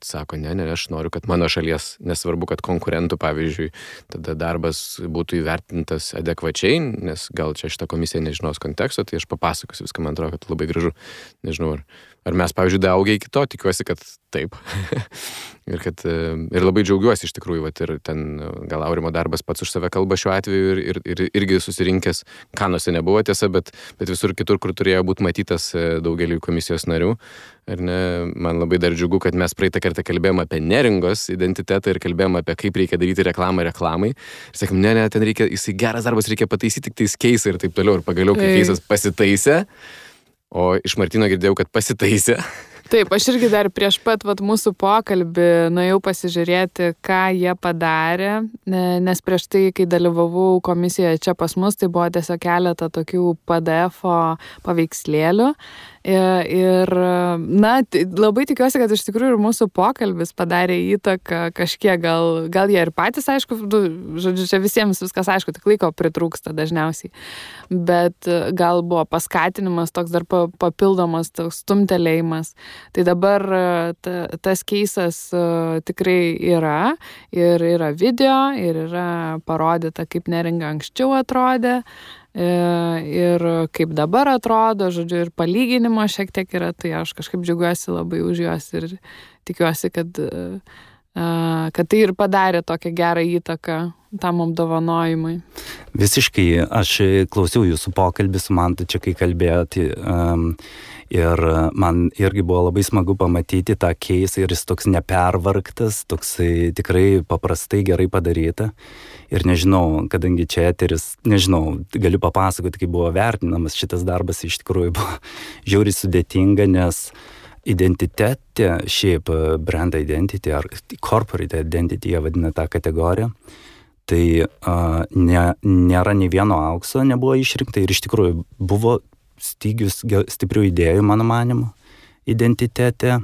sako, ne, aš noriu, kad mano šalies, nesvarbu, kad konkurentų, pavyzdžiui, tada darbas būtų įvertintas adekvačiai, nes gal čia šitą komisiją nežinos konteksto, tai aš papasakosiu viską, man atrodo, kad labai gražu. Nežinau, ar mes, pavyzdžiui, daugę iki to, tikiuosi, kad taip. ir labai džiaugiuosi iš tikrųjų, ir ten gal Aurimo darbas pats už save kalba šiuo atveju ir irgi susirinkęs, Kanuose nebuvo tiesa, bet visur kitur, kur turėjo būti matytas daugeliu komisijos narių. Ar ne, man labai dar džiugu, kad mes praeitą kartą kalbėjome apie neringos identitetą ir kalbėjome apie kaip reikia daryti reklamą reklamai. Ir sakom, ne, ten reikia, jisai geras darbas, reikia pataisyti tik tais keisą ir taip toliau. Ir pagaliau, kai keisas pasitaisė, o iš Martino girdėjau, kad pasitaisė. Taip, aš irgi dar prieš pat mūsų pokalbį nuėjau pasižiūrėti, ką jie padarė, nes prieš tai, kai dalyvavau komisijoje čia pas mus, tai buvo tiesiog keletą tokių PDF-o paveikslėlių. Ir, na, labai tikiuosi, kad iš tikrųjų ir mūsų pokalbis padarė įtaką kažkiek, gal jie ir patys, aišku, žodžiu, čia visiems viskas aišku, tik laiko pritrūksta dažniausiai, bet gal buvo paskatinimas toks dar papildomas, toks stumtelėjimas. Tai dabar tas keisas tikrai yra, ir yra video, ir yra parodyta, kaip neringa anksčiau atrodė, ir kaip dabar atrodo, žodžiu, ir palyginimo šiek tiek yra, tai aš kažkaip džiaugiuosi labai už juos ir tikiuosi, kad tai ir padarė tokią gerą įtaką tam apdovanojimui. Visiškai, aš klausiau jūsų pokalbį su Mantu čia, kai kalbėjote, ir man irgi buvo labai smagu pamatyti tą keisą ir jis toks nepervargtas, toks tikrai paprastai gerai padaryta. Ir nežinau, kadangi čia eteris, nežinau, galiu papasakoti, kaip buvo vertinamas šitas darbas, iš tikrųjų buvo žiauriai sudėtinga, nes identitetė, šiaip brand identity ar corporate identity, jie vadina tą kategoriją, tai nėra nei vieno aukso, nebuvo išrinkta ir iš tikrųjų buvo stygius stiprių idėjų, mano manimu, identitete.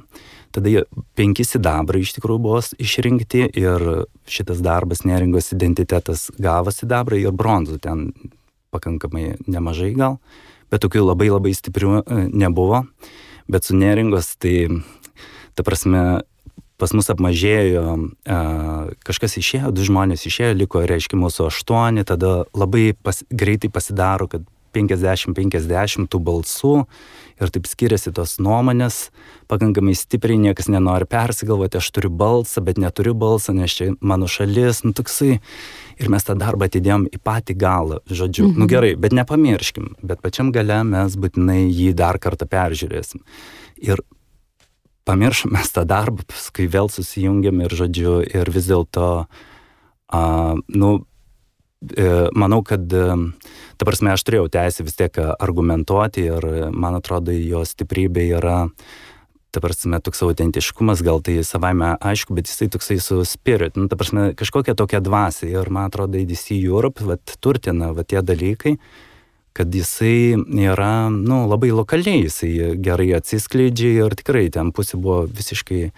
Tada 5 sidabrai iš tikrųjų buvo išrinkti ir šitas darbas neringos identitetas gavo sidabrą ir bronzų ten pakankamai nemažai gal, bet tokių labai labai stiprių nebuvo. Bet su neringos tai, ta prasme, pas mus apmažėjo, kažkas išėjo, 2 žmonės išėjo, liko, reiškia, mūsų 8, tada labai greitai pasidaro, kad 50-50 tų balsų ir taip skiriasi tos nuomonės, pakankamai stipriai, niekas nenori persigalvoti, aš turiu balsą, bet neturiu balsą, nes čia mano šalis, toksai, ir mes tą darbą atidėjom į patį galą, žodžiu, gerai, bet nepamirškim, bet pačiam gale mes būtinai jį dar kartą peržiūrėsim. Ir pamiršom mes tą darbą, paskui vėl susijungiam ir, žodžiu, ir vis dėlto, manau, kad, ta prasme, aš turėjau teisę vis tiek argumentuoti ir, man atrodo, jo stiprybė yra, ta prasme, toks autentiškumas, gal tai savaime aišku, bet jisai toksai su spirit, ta prasme, kažkokia tokia dvasia ir, man atrodo, ADC Europe, turtina, tie dalykai, kad jisai yra, labai lokaliai, jisai gerai atsiskleidžia ir tikrai ten pusė buvo visiškai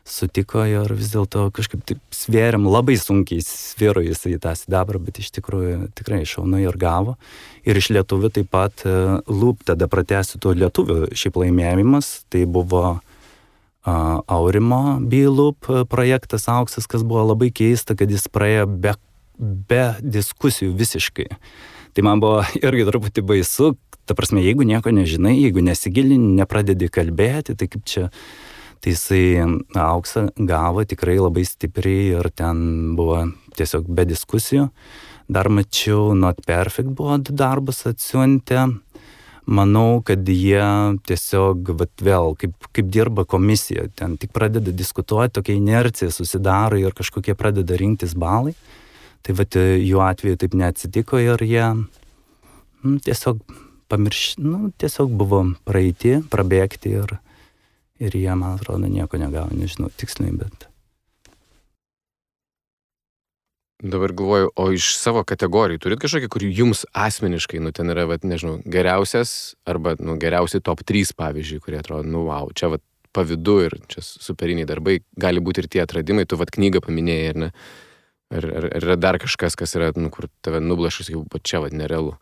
sutiko ir vis dėlto kažkaip taip svėrėm, labai sunkiai sviro jisai tą sidabrą, bet iš tikrųjų tikrai šaunai ir gavo. Ir iš lietuvių taip pat Loop, tada pratęsiu tų lietuvių šiaip laimėjimas, tai buvo Aurimo B-Loop projektas Auksas, kas buvo labai keista, kad jis praėjo be diskusijų visiškai. Tai man buvo irgi truputį baisu, ta prasme, jeigu nieko nežinai, jeigu nesigilini, nepradedi kalbėti, tai kaip čia. Tai jisai Auksą gavo tikrai labai stipriai ir ten buvo tiesiog be diskusijų. Dar mačiau Not Perfect buvo 2 darbus atsiuntę. Manau, kad jie tiesiog vėl, kaip dirba komisija, ten tik pradeda diskutuoti, tokia inercija susidaro ir kažkokie pradeda rinktis balai. Tai jų atveju taip neatsitiko ir jie tiesiog tiesiog buvo praeiti, prabėgti ir jie, man atrodo, nieko negavo, nežinau tiksliai, bet. Dabar galvoju, o iš savo kategorijų turit kažkokį, kur jums asmeniškai, ten yra, nežinau, geriausias arba, geriausi top 3, pavyzdžiui, kurie atrodo, wow, čia pavydu ir čia superiniai darbai, gali būti ir tie atradimai, tu knygą paminėjai, ar ne? Ar yra dar kažkas, kas yra, kur tave nublašus, jau čia nerealu?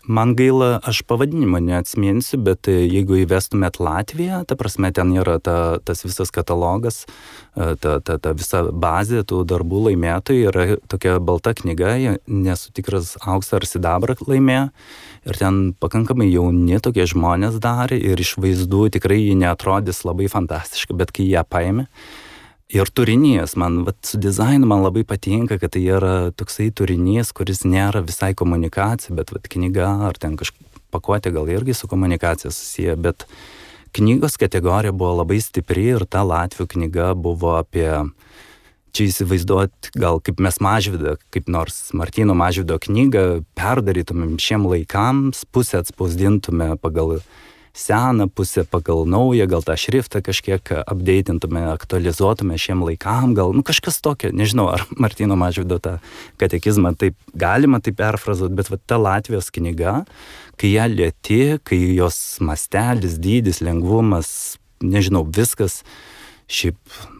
Man gaila, aš pavadinimą neatsiminsiu, bet jeigu įvestumėt Latviją, ta prasme, ten yra tas visas katalogas, ta visa bazė tų darbų laimėtojų, yra tokia balta knyga, nesu tikras auksą ar sidabrą laimėjo, ir ten pakankamai jauni tokie žmonės darė, ir iš vaizdų tikrai jie neatrodys labai fantastiškai, bet kai jie paėmė, ir turinys, man su dizainu man labai patinka, kad tai yra toksai turinys, kuris nėra visai komunikacija, bet knyga ar ten kažkaip pakuotė gal irgi su komunikacija susiję, bet knygos kategorija buvo labai stipri ir ta latvių knyga buvo apie, čia įsivaizduot gal kaip mes Mažvydą, kaip nors Martyno Mažvydo knygą perdarytumėm šiem laikams, pusę atspausdintume pagal seną pusę, pagal naują, gal tą šriftą kažkiek updatintume, aktualizuotume šiem laikam, gal, kažkas tokio, nežinau, ar Martyno Mažvydo tą katekizmą taip galima taip perfrazuoti, bet ta Latvijos knyga, kai ją lieti, kai jos mastelis, dydis, lengvumas, nežinau, viskas, šiaip,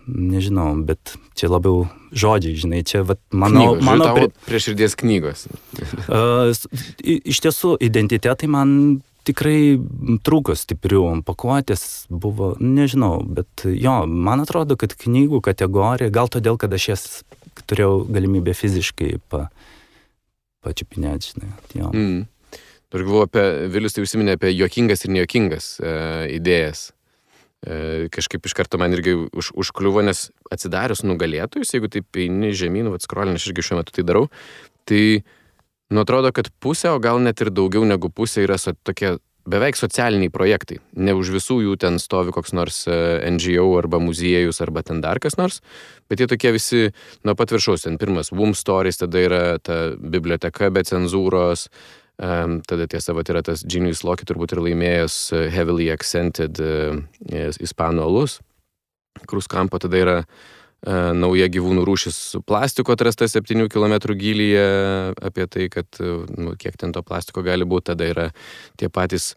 nežinau, bet čia labiau žodžiai, žinai, čia, mano prie širdies knygos. Iš tiesų, identitetai man tikrai trūko stiprių, pakuotės buvo, nežinau, bet jo, man atrodo, kad knygų kategorija, gal todėl, kad aš jas turėjau galimybę fiziškai pačiupinėti, žinai, jo. Aš galvoju apie, Vilius tai užsiminė apie juokingas ir nejuokingas idėjas. Kažkaip iš karto man irgi užkliuvo, nes atsidarius nugalėtojus, jeigu taip eini žemyn, skrolin, aš irgi šiuo metu tai darau, tai atrodo, kad pusė, o gal net ir daugiau negu pusė yra tokie beveik socialiniai projektai. Ne už visų jų ten stovi koks nors NGO arba muziejus arba ten dar kas nors, bet jie tokie visi nuo pat viršaus. Ten pirmas Womb Stories, tada yra ta biblioteka be cenzūros, tada tiesa, yra tas Genius Loki turbūt ir laimėjęs Heavily Accented ispanų alus. Kruskampo tada yra nauja gyvūnų rūšis su plastiko atrasta 7 km gylyje, apie tai, kad kiek ten to plastiko gali būti. Tada yra tie patys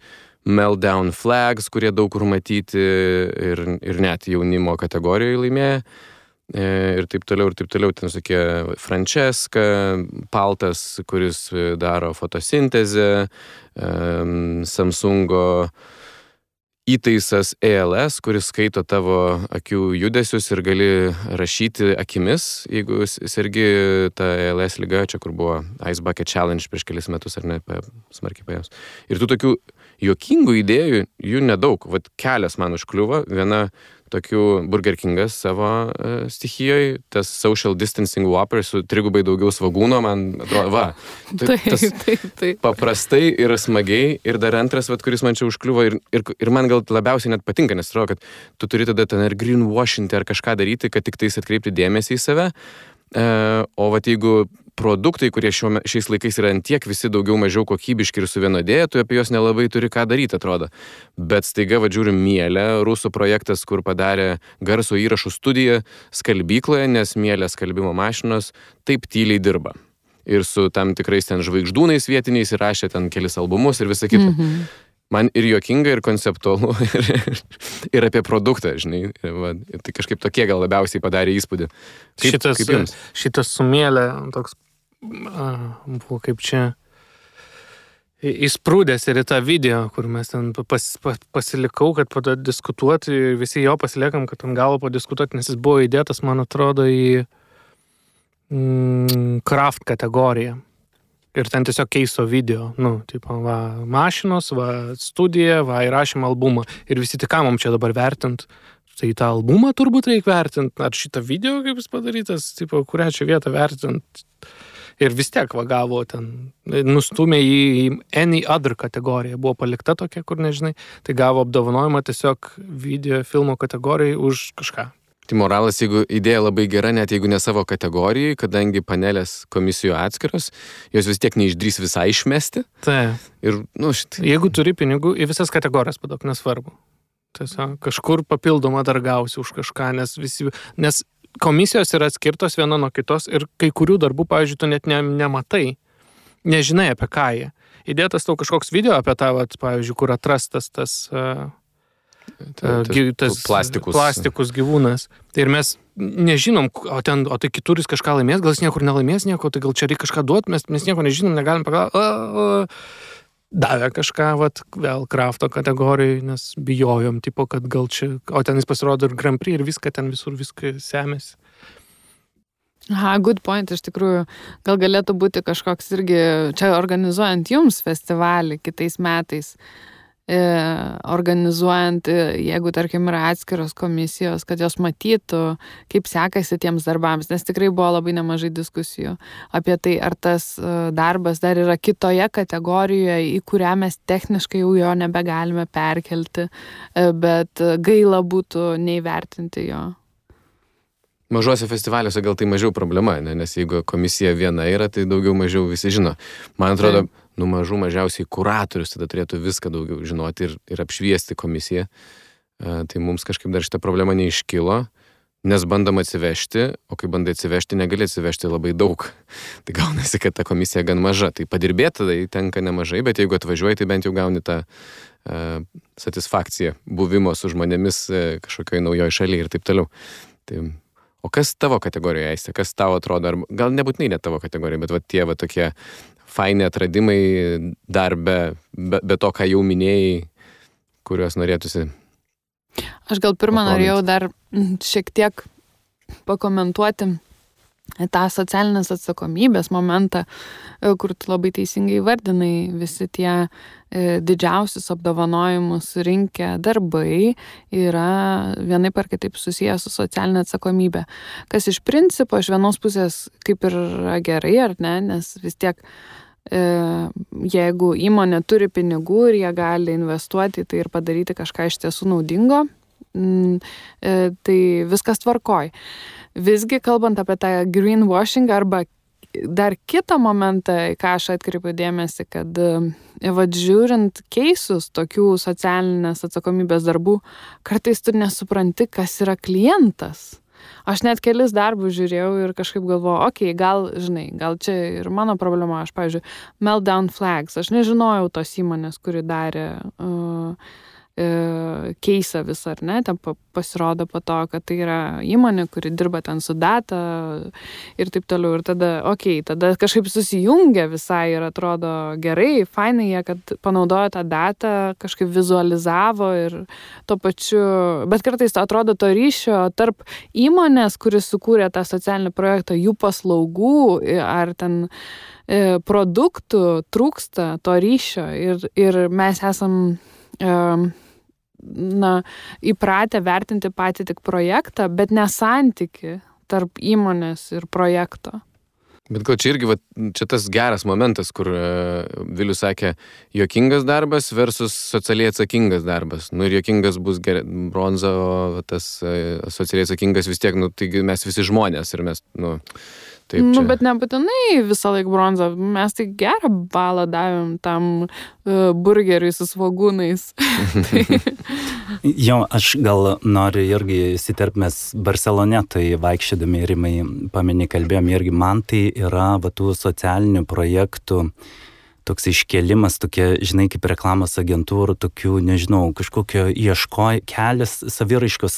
Meltdown Flags, kurie daug kur matyti ir net jaunimo kategorijoje laimėja. Ir taip toliau. Ten tokie Francesca, Paltas, kuris daro fotosintezę, Samsungo įtaisas ALS, kuris skaito tavo akių judesius ir gali rašyti akimis, jeigu sergi tą ALS ligą, čia kur buvo Ice Bucket Challenge prieš kelis metus, ar ne, smarkiai paėmus. Ir tų tokių juokingų idėjų, jų nedaug. Kelias man užkliuvo, viena tokių Burger Kingas savo stichijoje, tas social distancing Whopper su 3 daugiau svagūno, man atrodo, Taip. Paprastai ir smagiai, ir dar antras, kuris man čia užkliuvo, ir man gal labiausiai net patinka, nes atrodo, kad tu turi tada ten ir greenwashinti ar kažką daryti, kad tik tais atkreipti dėmesį į save, o jeigu produktai, kurie šiais laikais yra antiek visi daugiau mažiau kokybiški ir suvienodėję, tu apie juos nelabai turi ką daryti, atrodo. Bet staiga, žiūrim, Mielė, rusų projektas, kur padarė garso įrašų studiją skalbykloje, nes Mielė skalbimo mašinos taip tyliai dirba. ir su tam tikrais ten žvaigždūnais vietiniais įrašė ten kelis albumus ir visą kitą. Man ir juokinga, ir konceptualu, ir apie produktą, žinai. Va, tai kažkaip tokie gal labiausiai padarė įspūdį. Šitas sumėlė, toks buvo kaip čia įsprūdęs ir į tą video, kur mes ten pasilikau, kad padiskutuoti, visi jo pasiliekam, kad ant galo padiskutuoti, nes jis buvo įdėtas, man atrodo, į craft kategoriją. Ir ten tiesiog keiso video, tipo, va, mašinos, va, studija, va, įrašėm albumą. Ir visi tik ką mums čia dabar vertint. Tai tą albumą turbūt reikia vertint, ar šitą video, kaip jis padarytas, tipo, kurią čia vietą vertint. Ir vis tiek va gavo ten, nustumė į any other kategoriją. Buvo palikta tokia, kur nežinai. Tai gavo apdovanojimą tiesiog video filmo kategorijai už kažką. Tai moralas, jeigu idėja labai gera, net jeigu ne savo kategorijai, kadangi panelės komisijų atskiros, jos vis tiek neišdrys visai išmesti. Tai. Ir, Jeigu turi pinigų, į visas kategorijas padok, nesvarbu. Tiesiog kažkur papildomą dar gausi už kažką, nes komisijos yra atskirtos viena nuo kitos ir kai kurių darbų, pavyzdžiui, tu net nematai, nežinai apie ką jie. Įdėtas tau kažkoks video apie tą, pavyzdžiui, kur atrastas tas plastikus gyvūnas. Tai ir mes nežinom, o tai kituris kažką laimės, gal jis niekur nelaimės nieko, tai gal čia reikia kažką duoti, mes nieko nežinom, negalim pagalvoti. Davė kažką, vėl krafto kategorijai, nes bijojom, tipo, kad gal čia, o ten jis pasirodo ir Grand Prix ir viską, ten visur viską semėsi. Good point, iš tikrųjų. Gal galėtų būti kažkoks irgi, čia organizuojant jums festivalį kitais metais, organizuojant, jeigu, tarkim, yra atskiros komisijos, kad jos matytų, kaip sekasi tiems darbams, nes tikrai buvo labai nemažai diskusijų apie tai, ar tas darbas dar yra kitoje kategorijoje, į kurią mes techniškai jau jo nebegalime perkelti, bet gaila būtų neįvertinti jo. Mažuose festivaliuose gal tai mažiau problema, nes jeigu komisija viena yra, tai daugiau mažiau visi žino. Man atrodo, mažiausiai kuratorius tada turėtų viską daugiau žinoti ir apšviesti komisiją. Tai mums kažkaip dar šitą problemą neiškilo, nes bandom atsivežti, o kai bandai atsivežti, negali atsivežti labai daug. Tai gaunasi, kad ta komisija gan maža. Tai padirbėti tai tenka nemažai, bet jeigu atvažiuoji, tai bent jau gauni tą satisfakciją buvimo su žmonėmis kažkokioj naujoj šalyje ir taip toliau. Tai o kas tavo kategorijoje, Aiste? Kas tavo atrodo, gal nebūtinai ne tavo kategorija, bet tie tokie faini atradimai dar be to, ką jau minėjai, kuriuos norėtųsi? Aš gal pirmą norėjau dar šiek tiek pakomentuoti tą socialinės atsakomybės momentą, kur tu labai teisingai vardinai, visi tie didžiausius apdovanojimus rinkę darbai yra vienaip ar kitaip susijęs su socialinė atsakomybė. Kas iš principo, iš vienos pusės kaip ir gerai, ar ne, nes vis tiek jeigu įmonė turi pinigų ir jie gali investuoti tai ir padaryti kažką iš tiesų naudingo, tai viskas tvarkoj. Visgi, kalbant apie tą greenwashing arba dar kitą momentą, ką aš atkreipiu dėmesį, kad žiūrint keisus tokių socialinės atsakomybės darbų, kartais tu nesupranti, kas yra klientas. Aš net kelis darbus žiūrėjau ir kažkaip galvojau, gal čia ir mano problema. Aš, pavyzdžiui, Meltdown Flags, aš nežinojau tos įmonės, kuri darė keisą visą, ar ne, ten pasirodo po to, kad tai yra įmonė, kuri dirba ten su data ir taip toliau, ir tada kažkaip susijungia visai ir atrodo gerai, fainai jie, kad panaudojo tą datą, kažkaip vizualizavo ir tuo pačiu, bet kartais atrodo to ryšio tarp įmonės, kuris sukūrė tą socialinį projektą, jų paslaugų ar ten produktų trūksta to ryšio ir mes esam įpratę vertinti patį tik projektą, bet ne santyki tarp įmonės ir projekto. Bet gal čia irgi, čia tas geras momentas, kur Vilius sakė, juokingas darbas versus socialiai atsakingas darbas. Ir juokingas bus bronza, o tas socialiai atsakingas vis tiek, taigi mes visi žmonės ir mes, Taip, Nu, čia. bet nebūtinai visą laiką bronzą. Mes tai gerą balą davėm tam burgeriui su svogūnais. Jo, aš gal noriu irgi įsiterpti, mes Barcelone, tai vaikščiodami Rimai paminį kalbėjom, irgi man tai yra tų socialinių projektų toks iškėlimas, tokie, žinai, kaip reklamos agentūrų, tokių, nežinau, kažkokio kelias saviraiškos,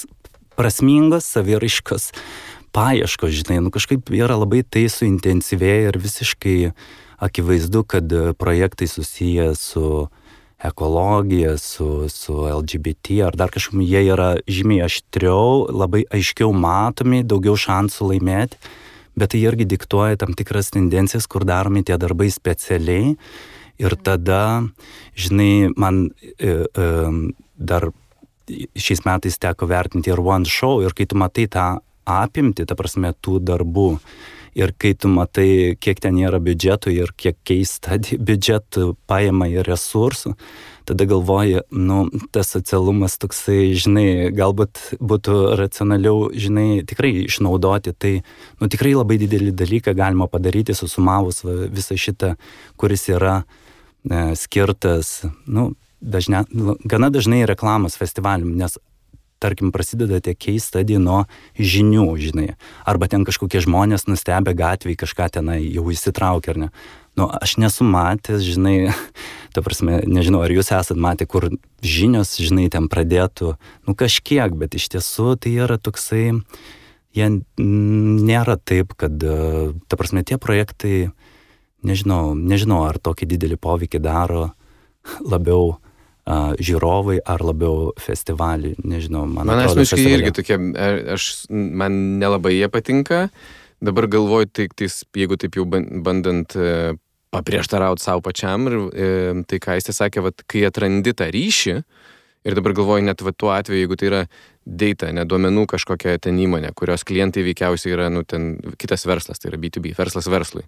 prasmingos saviraiškos paieškos, žinai, kažkaip yra labai tai suintensyvėję ir visiškai akivaizdu, kad projektai susiję su ekologija, su LGBT ar dar kažkaip, jie yra žymiai aštriau, labai aiškiau matomi, daugiau šansų laimėti. Bet tai irgi diktuoja tam tikras tendencijas, kur daromi tie darbai specialiai. Ir tada, žinai, man dar šiais metais teko vertinti ir One Show. Ir kai tu matai tą apimtį, ta prasme, tų darbų, ir kai tu matai, kiek ten yra biudžetų ir kiek keista biudžetų paima ir resursų, tada galvoji, tas socialumas toksai, žinai, galbūt būtų racionaliau, žinai, tikrai išnaudoti. Tai, tikrai labai didelį dalyką galima padaryti, susumavus visą šitą, kuris yra skirtas, gana dažnai reklamos festivalium, nes, tarkim, prasideda tie case study nuo žinių, žinai. Arba ten kažkokie žmonės nustebę gatvėje kažką tenai jau įsitraukia, ar ne. Aš nesu matęs, žinai, ta prasme, nežinau, ar jūs esat matę, kur žinios, žinai, ten pradėtų, kažkiek, bet iš tiesų tai yra toksai, jie nėra taip, kad, ta prasme, tie projektai, nežinau, ar tokį didelį poveikį daro labiau žiūrovai ar labiau festivaliai, nežinau, man atrodo. Man asmeniškai irgi tokie, man nelabai jie patinka. Dabar galvoju, tai jeigu taip jau bandant paprieštarauti savo pačiam, ir tai, ką jis sakė, kai atrandi tą ryšį, ir dabar galvoju, net tuo atveju, jeigu tai yra data, ne duomenų kažkokia ten įmonė, kurios klientai veikiausiai yra, ten kitas verslas, tai yra B2B, verslas verslui.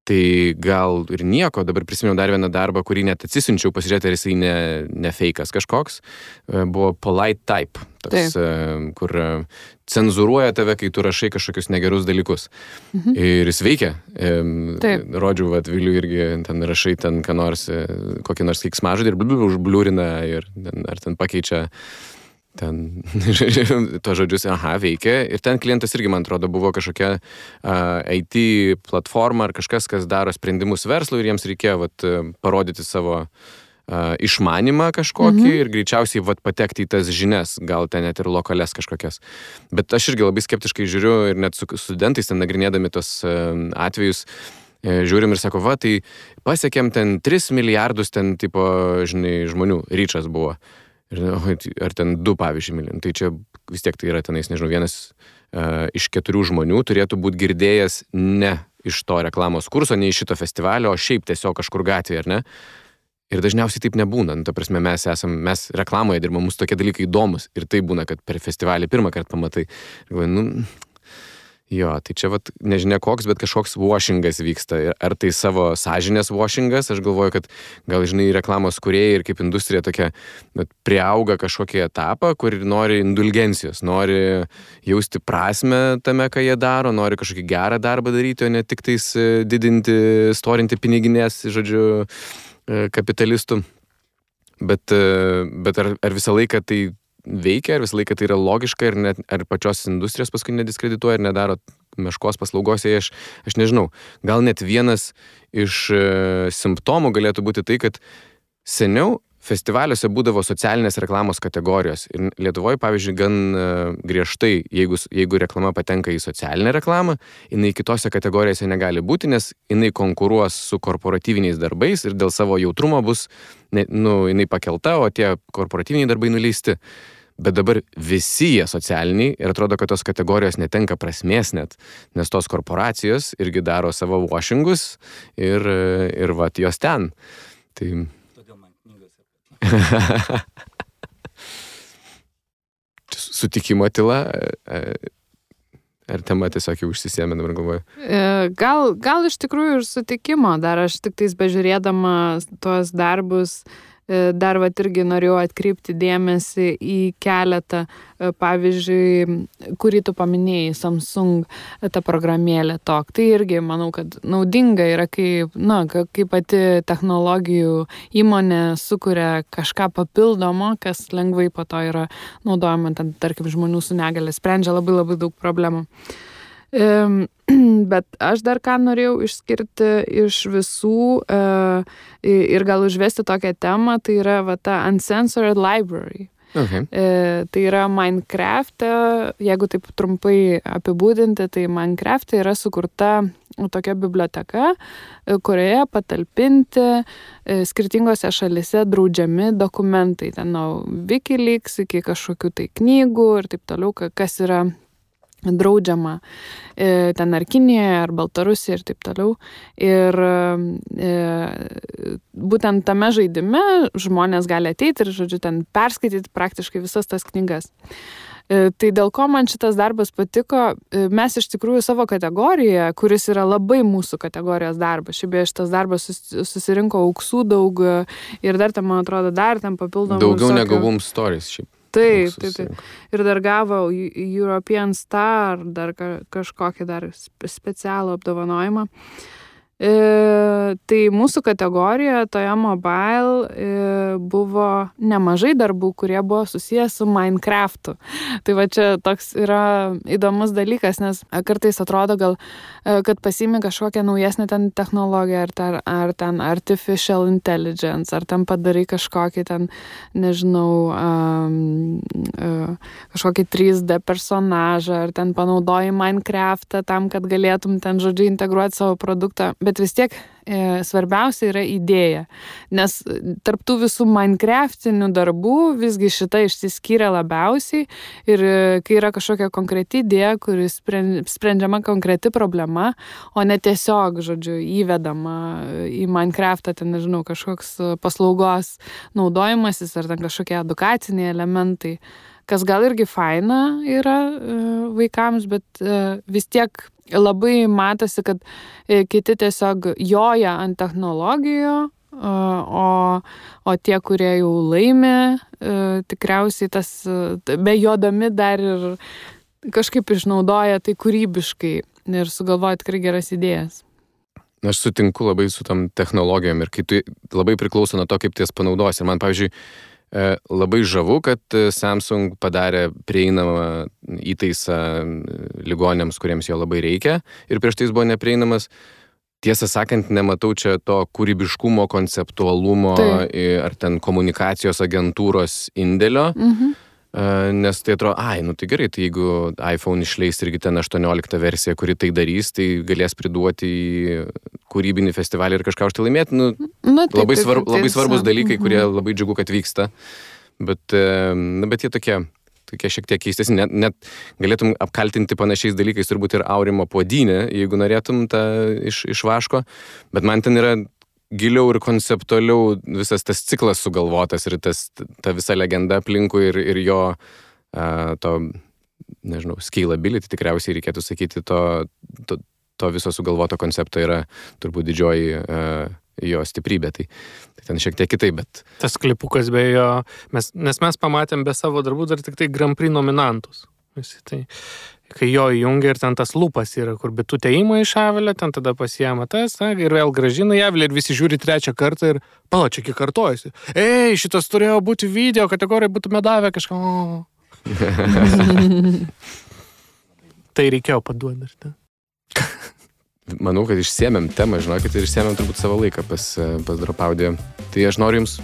Tai gal ir nieko, dabar prisimenu dar vieną darbą, kurį net atsisinčiau, pasižiūrėti, ar jisai ne fake'as kažkoks, buvo Polite Type, toks, kur cenzūruoja tave, kai tu rašai kažkokius negerus dalykus. Ir jis veikia. Rodžiu, Viliui irgi ten rašai ten ką nors, kokį nors keiksmažodį ir užbliūrina, ir ar ten pakeičia ten to žodžius, veikia. Ir ten klientas irgi, man atrodo, buvo kažkokia IT platforma ar kažkas, kas daro sprendimus verslui, ir jiems reikėjo parodyti savo išmanimą kažkokį ir greičiausiai patekti į tas žinias, gal ten net ir lokales kažkokias. Bet aš irgi labai skeptiškai žiūriu, ir net su studentais ten nagrinėdami tos atvejus, žiūrim ir sako, tai pasiekėm ten 3 milijardus ten tipo, žinai, žmonių, ryčas buvo. Ar ten 2, pavyzdžiui, milijonų. Tai čia vis tiek tai yra tenais, nežinau, vienas iš 4 žmonių turėtų būti girdėjęs ne iš to reklamos kurso, ne iš šito festivalio, o šiaip tiesiog kažkur gatvėje, ar ne? Ir dažniausiai taip nebūna. Ta prasme, mes reklamoje dirbame, mums tokie dalykai įdomus. Ir tai būna, kad per festivalį pirmą kartą pamatai. Tai čia nežinia koks, bet kažkoks washingas vyksta. Ar tai savo sąžinės washingas? Aš galvoju, kad gal, žinai, reklamos kūrėjai ir kaip industrija tokia priauga kažkokį etapą, kur nori indulgencijos, nori jausti prasmę tame, ką jie daro, nori kažkokį gerą darbą daryti, o ne tik tais didinti, storinti piniginės, žodžiu, kapitalistų. Bet ar visą laiką tai veikia, ar visą laiką tai yra logiška, ir net, ar pačios industrijos paskui nediskredituoja ir nedaro meškos paslaugos, aš nežinau. Gal net vienas iš simptomų galėtų būti tai, kad seniau festivaliuose būdavo socialinės reklamos kategorijos. Ir Lietuvoje, pavyzdžiui, gan griežtai, jeigu reklama patenka į socialinę reklamą, jinai kitose kategorijose negali būti, nes jinai konkuruos su korporatyviniais darbais ir dėl savo jautrumo bus, jinai pakelta, o tie korporatyviniai darbai nuleisti. Bet dabar visi jie socialiniai, ir atrodo, kad tos kategorijos netenka prasmės net, nes tos korporacijos irgi daro savo washingus ir jos ten. Tai sutikimo tyla, ar tema tiesiog jau užsisėmė, dabar galvoju? Gal iš tikrųjų ir sutikimo, dar aš tik tais bežiūrėdama tuos darbus dar irgi norėjau atkreipti dėmesį į keletą, pavyzdžiui, kurį tu paminėjai, Samsung ta programėlė TOK. Tai irgi manau, kad naudinga yra, kai pati technologijų įmonė sukuria kažką papildomo, kas lengvai po to yra naudojama, tarkim, žmonių su negalia, sprendžia labai labai daug problemų. Bet aš dar ką norėjau išskirti iš visų ir gal užvesti tokią temą, tai yra ta Uncensored Library. Okay. Tai yra Minecraft'e, jeigu taip trumpai apibūdinti, tai Minecraft'e yra sukurta tokia biblioteka, kurioje patalpinti skirtingose šalise draudžiami dokumentai, ten nuo Wikileaks iki kažkokių tai knygų ir taip toliau, kas yra draudžiama ten ar Kinijoje, ar Baltarusijoje ir taip toliau. Ir būtent tame žaidime žmonės gali ateiti ir, žodžiu, ten perskaityti praktiškai visas tas knygas. Tai dėl ko man šitas darbas patiko, mes iš tikrųjų savo kategoriją, kuris yra labai mūsų kategorijos darbas, šitas darbas susirinko auksų daug ir dar ten, man atrodo, dar ten papildomų daugiau negu Boom Stories šiaip. Taip. Ir dar gavo European Star, dar kažkokį dar specialų apdovanojimą. Tai mūsų kategorijoje toje mobile buvo nemažai darbų, kurie buvo susijęs su Minecraft'u. Tai va čia toks yra įdomus dalykas, nes kartais atrodo gal, kad pasiimi kažkokią naujesnę ten technologiją, ar ten artificial intelligence, ar ten padarai kažkokį ten, nežinau, kažkokį 3D personažą, ar ten panaudoji Minecraft'ą tam, kad galėtum ten, žodžiu, integruoti savo produktą. Bet vis tiek svarbiausia yra idėja, nes tarptų visų Minecraftinių darbų visgi šita išsiskyrė labiausiai ir kai yra kažkokia konkreti idėja, kuris sprendžiama konkreti problema, o ne tiesiog, žodžiu, įvedama į Minecraftą, ten, nežinau, kažkoks paslaugos naudojimasis ar ten kažkokie edukaciniai elementai, kas gal irgi faina yra vaikams, bet vis tiek labai matosi, kad kiti tiesiog joja ant technologijų, o tie, kurie jau laimi, tikriausiai tas bejodami dar ir kažkaip išnaudoja tai kūrybiškai ir sugalvoja tikrai geras idėjas. Aš sutinku labai su tam technologijom ir kai tu labai priklauso nuo to, kaip ties panaudosi. Ir man, pavyzdžiui, labai žavu, kad Samsung padarė prieinamą įtaisą ligoniams, kuriems jo labai reikia ir prieš tai jis buvo neprieinamas. Tiesą sakant, nematau čia to kūrybiškumo, konceptualumo ar ten komunikacijos agentūros indėlio, nes tai atrodo, tai gerai, tai jeigu iPhone išleis irgi ten 18 versiją, kuri tai darys, tai galės priduoti į kūrybinį festivalį ir kažką už tai laimėti. Labai svarbus dalykai, kurie labai džiugu, kad vyksta, bet jie tokie šiek tiek keistesni. Net galėtum apkaltinti panašiais dalykais turbūt ir Aurimo Puodynę, jeigu norėtum tą iš vaško, bet man ten yra giliau ir konceptualiau visas tas ciklas sugalvotas ir ta visa legenda aplinkui ir jo to, nežinau, scalability tikriausiai reikėtų sakyti, to viso sugalvoto koncepto yra turbūt didžioji jo stiprybė. Tai ten šiek tiek kitaip, bet... Tas klipukas be jo, nes mes pamatėm be savo darbų dar tik tai Grand Prix nominantus. Visi tai... Kai jo įjungia ir ten tas lupas yra, kur bitutė įma iš avilę, ten tada pasiema tas, ir vėl grąžina į avilę ir visi žiūri trečią kartą ir čia kiek kartojasi. Šitas turėjo būti video, kategorija būtume davę kažką. Tai reikėjo paduoti dar. Manau, kad išsėmėm temą, žinokit, ir išsėmėm turbūt savo laiką pas Dropaudiją. Tai aš noriu Jums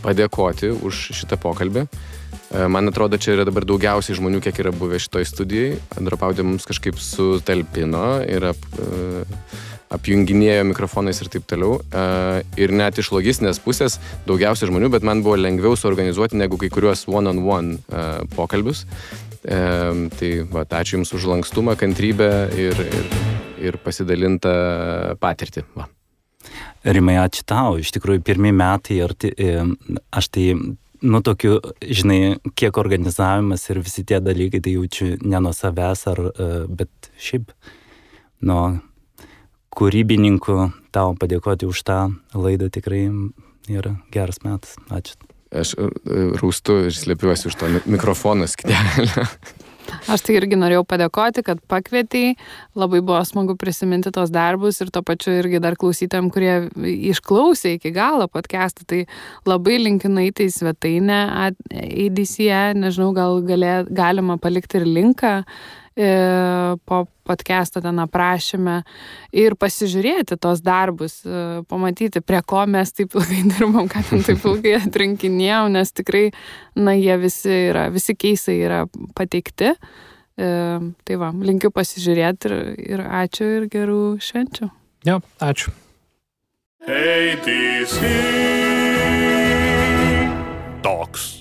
padėkoti už šitą pokalbį. Man atrodo, čia yra dabar daugiausiai žmonių, kiek yra buvę šitoj studijai. Dropaudė mums kažkaip sutalpino ir apjunginėjo mikrofonais ir taip toliau. Ir net iš logistinės pusės daugiausiai žmonių, bet man buvo lengviau suorganizuoti negu kai kuriuos one-on-one pokalbius. Tai ačiū Jums už lankstumą, kantrybę ir pasidalintą patirtį. Rimai, ačiū tau. Iš tikrųjų, pirmi metai aš tai... tokiu, žinai, kiek organizavimas ir visi tie dalykai, tai jaučiu ne nuo savęs, bet šiaip nuo kūrybininkų tau padėkoti už tą laidą tikrai yra geras metas. Ačiū. Aš rūstu ir slėpiuosi už to mikrofono skydelio. Aš tai irgi norėjau padėkoti, kad pakvietei. Labai buvo smagu prisiminti tos darbus ir to pačiu irgi dar klausytojams, kurie išklausė iki galo podcastą. Tai labai linkiu nueiti į svetainę ADCE. Nežinau, gal galima palikti ir linką po podcastą ten aprašyme ir pasižiūrėti tos darbus, pamatyti, prie ko mes taip ilgai dirbam, ką ten taip ilgai atrinkinėjom, nes tikrai, jie visi keisai yra pateikti. Tai va, linkiu pasižiūrėti ir ačiū ir gerų švenčių. Jo, ačiū. ADC Talks.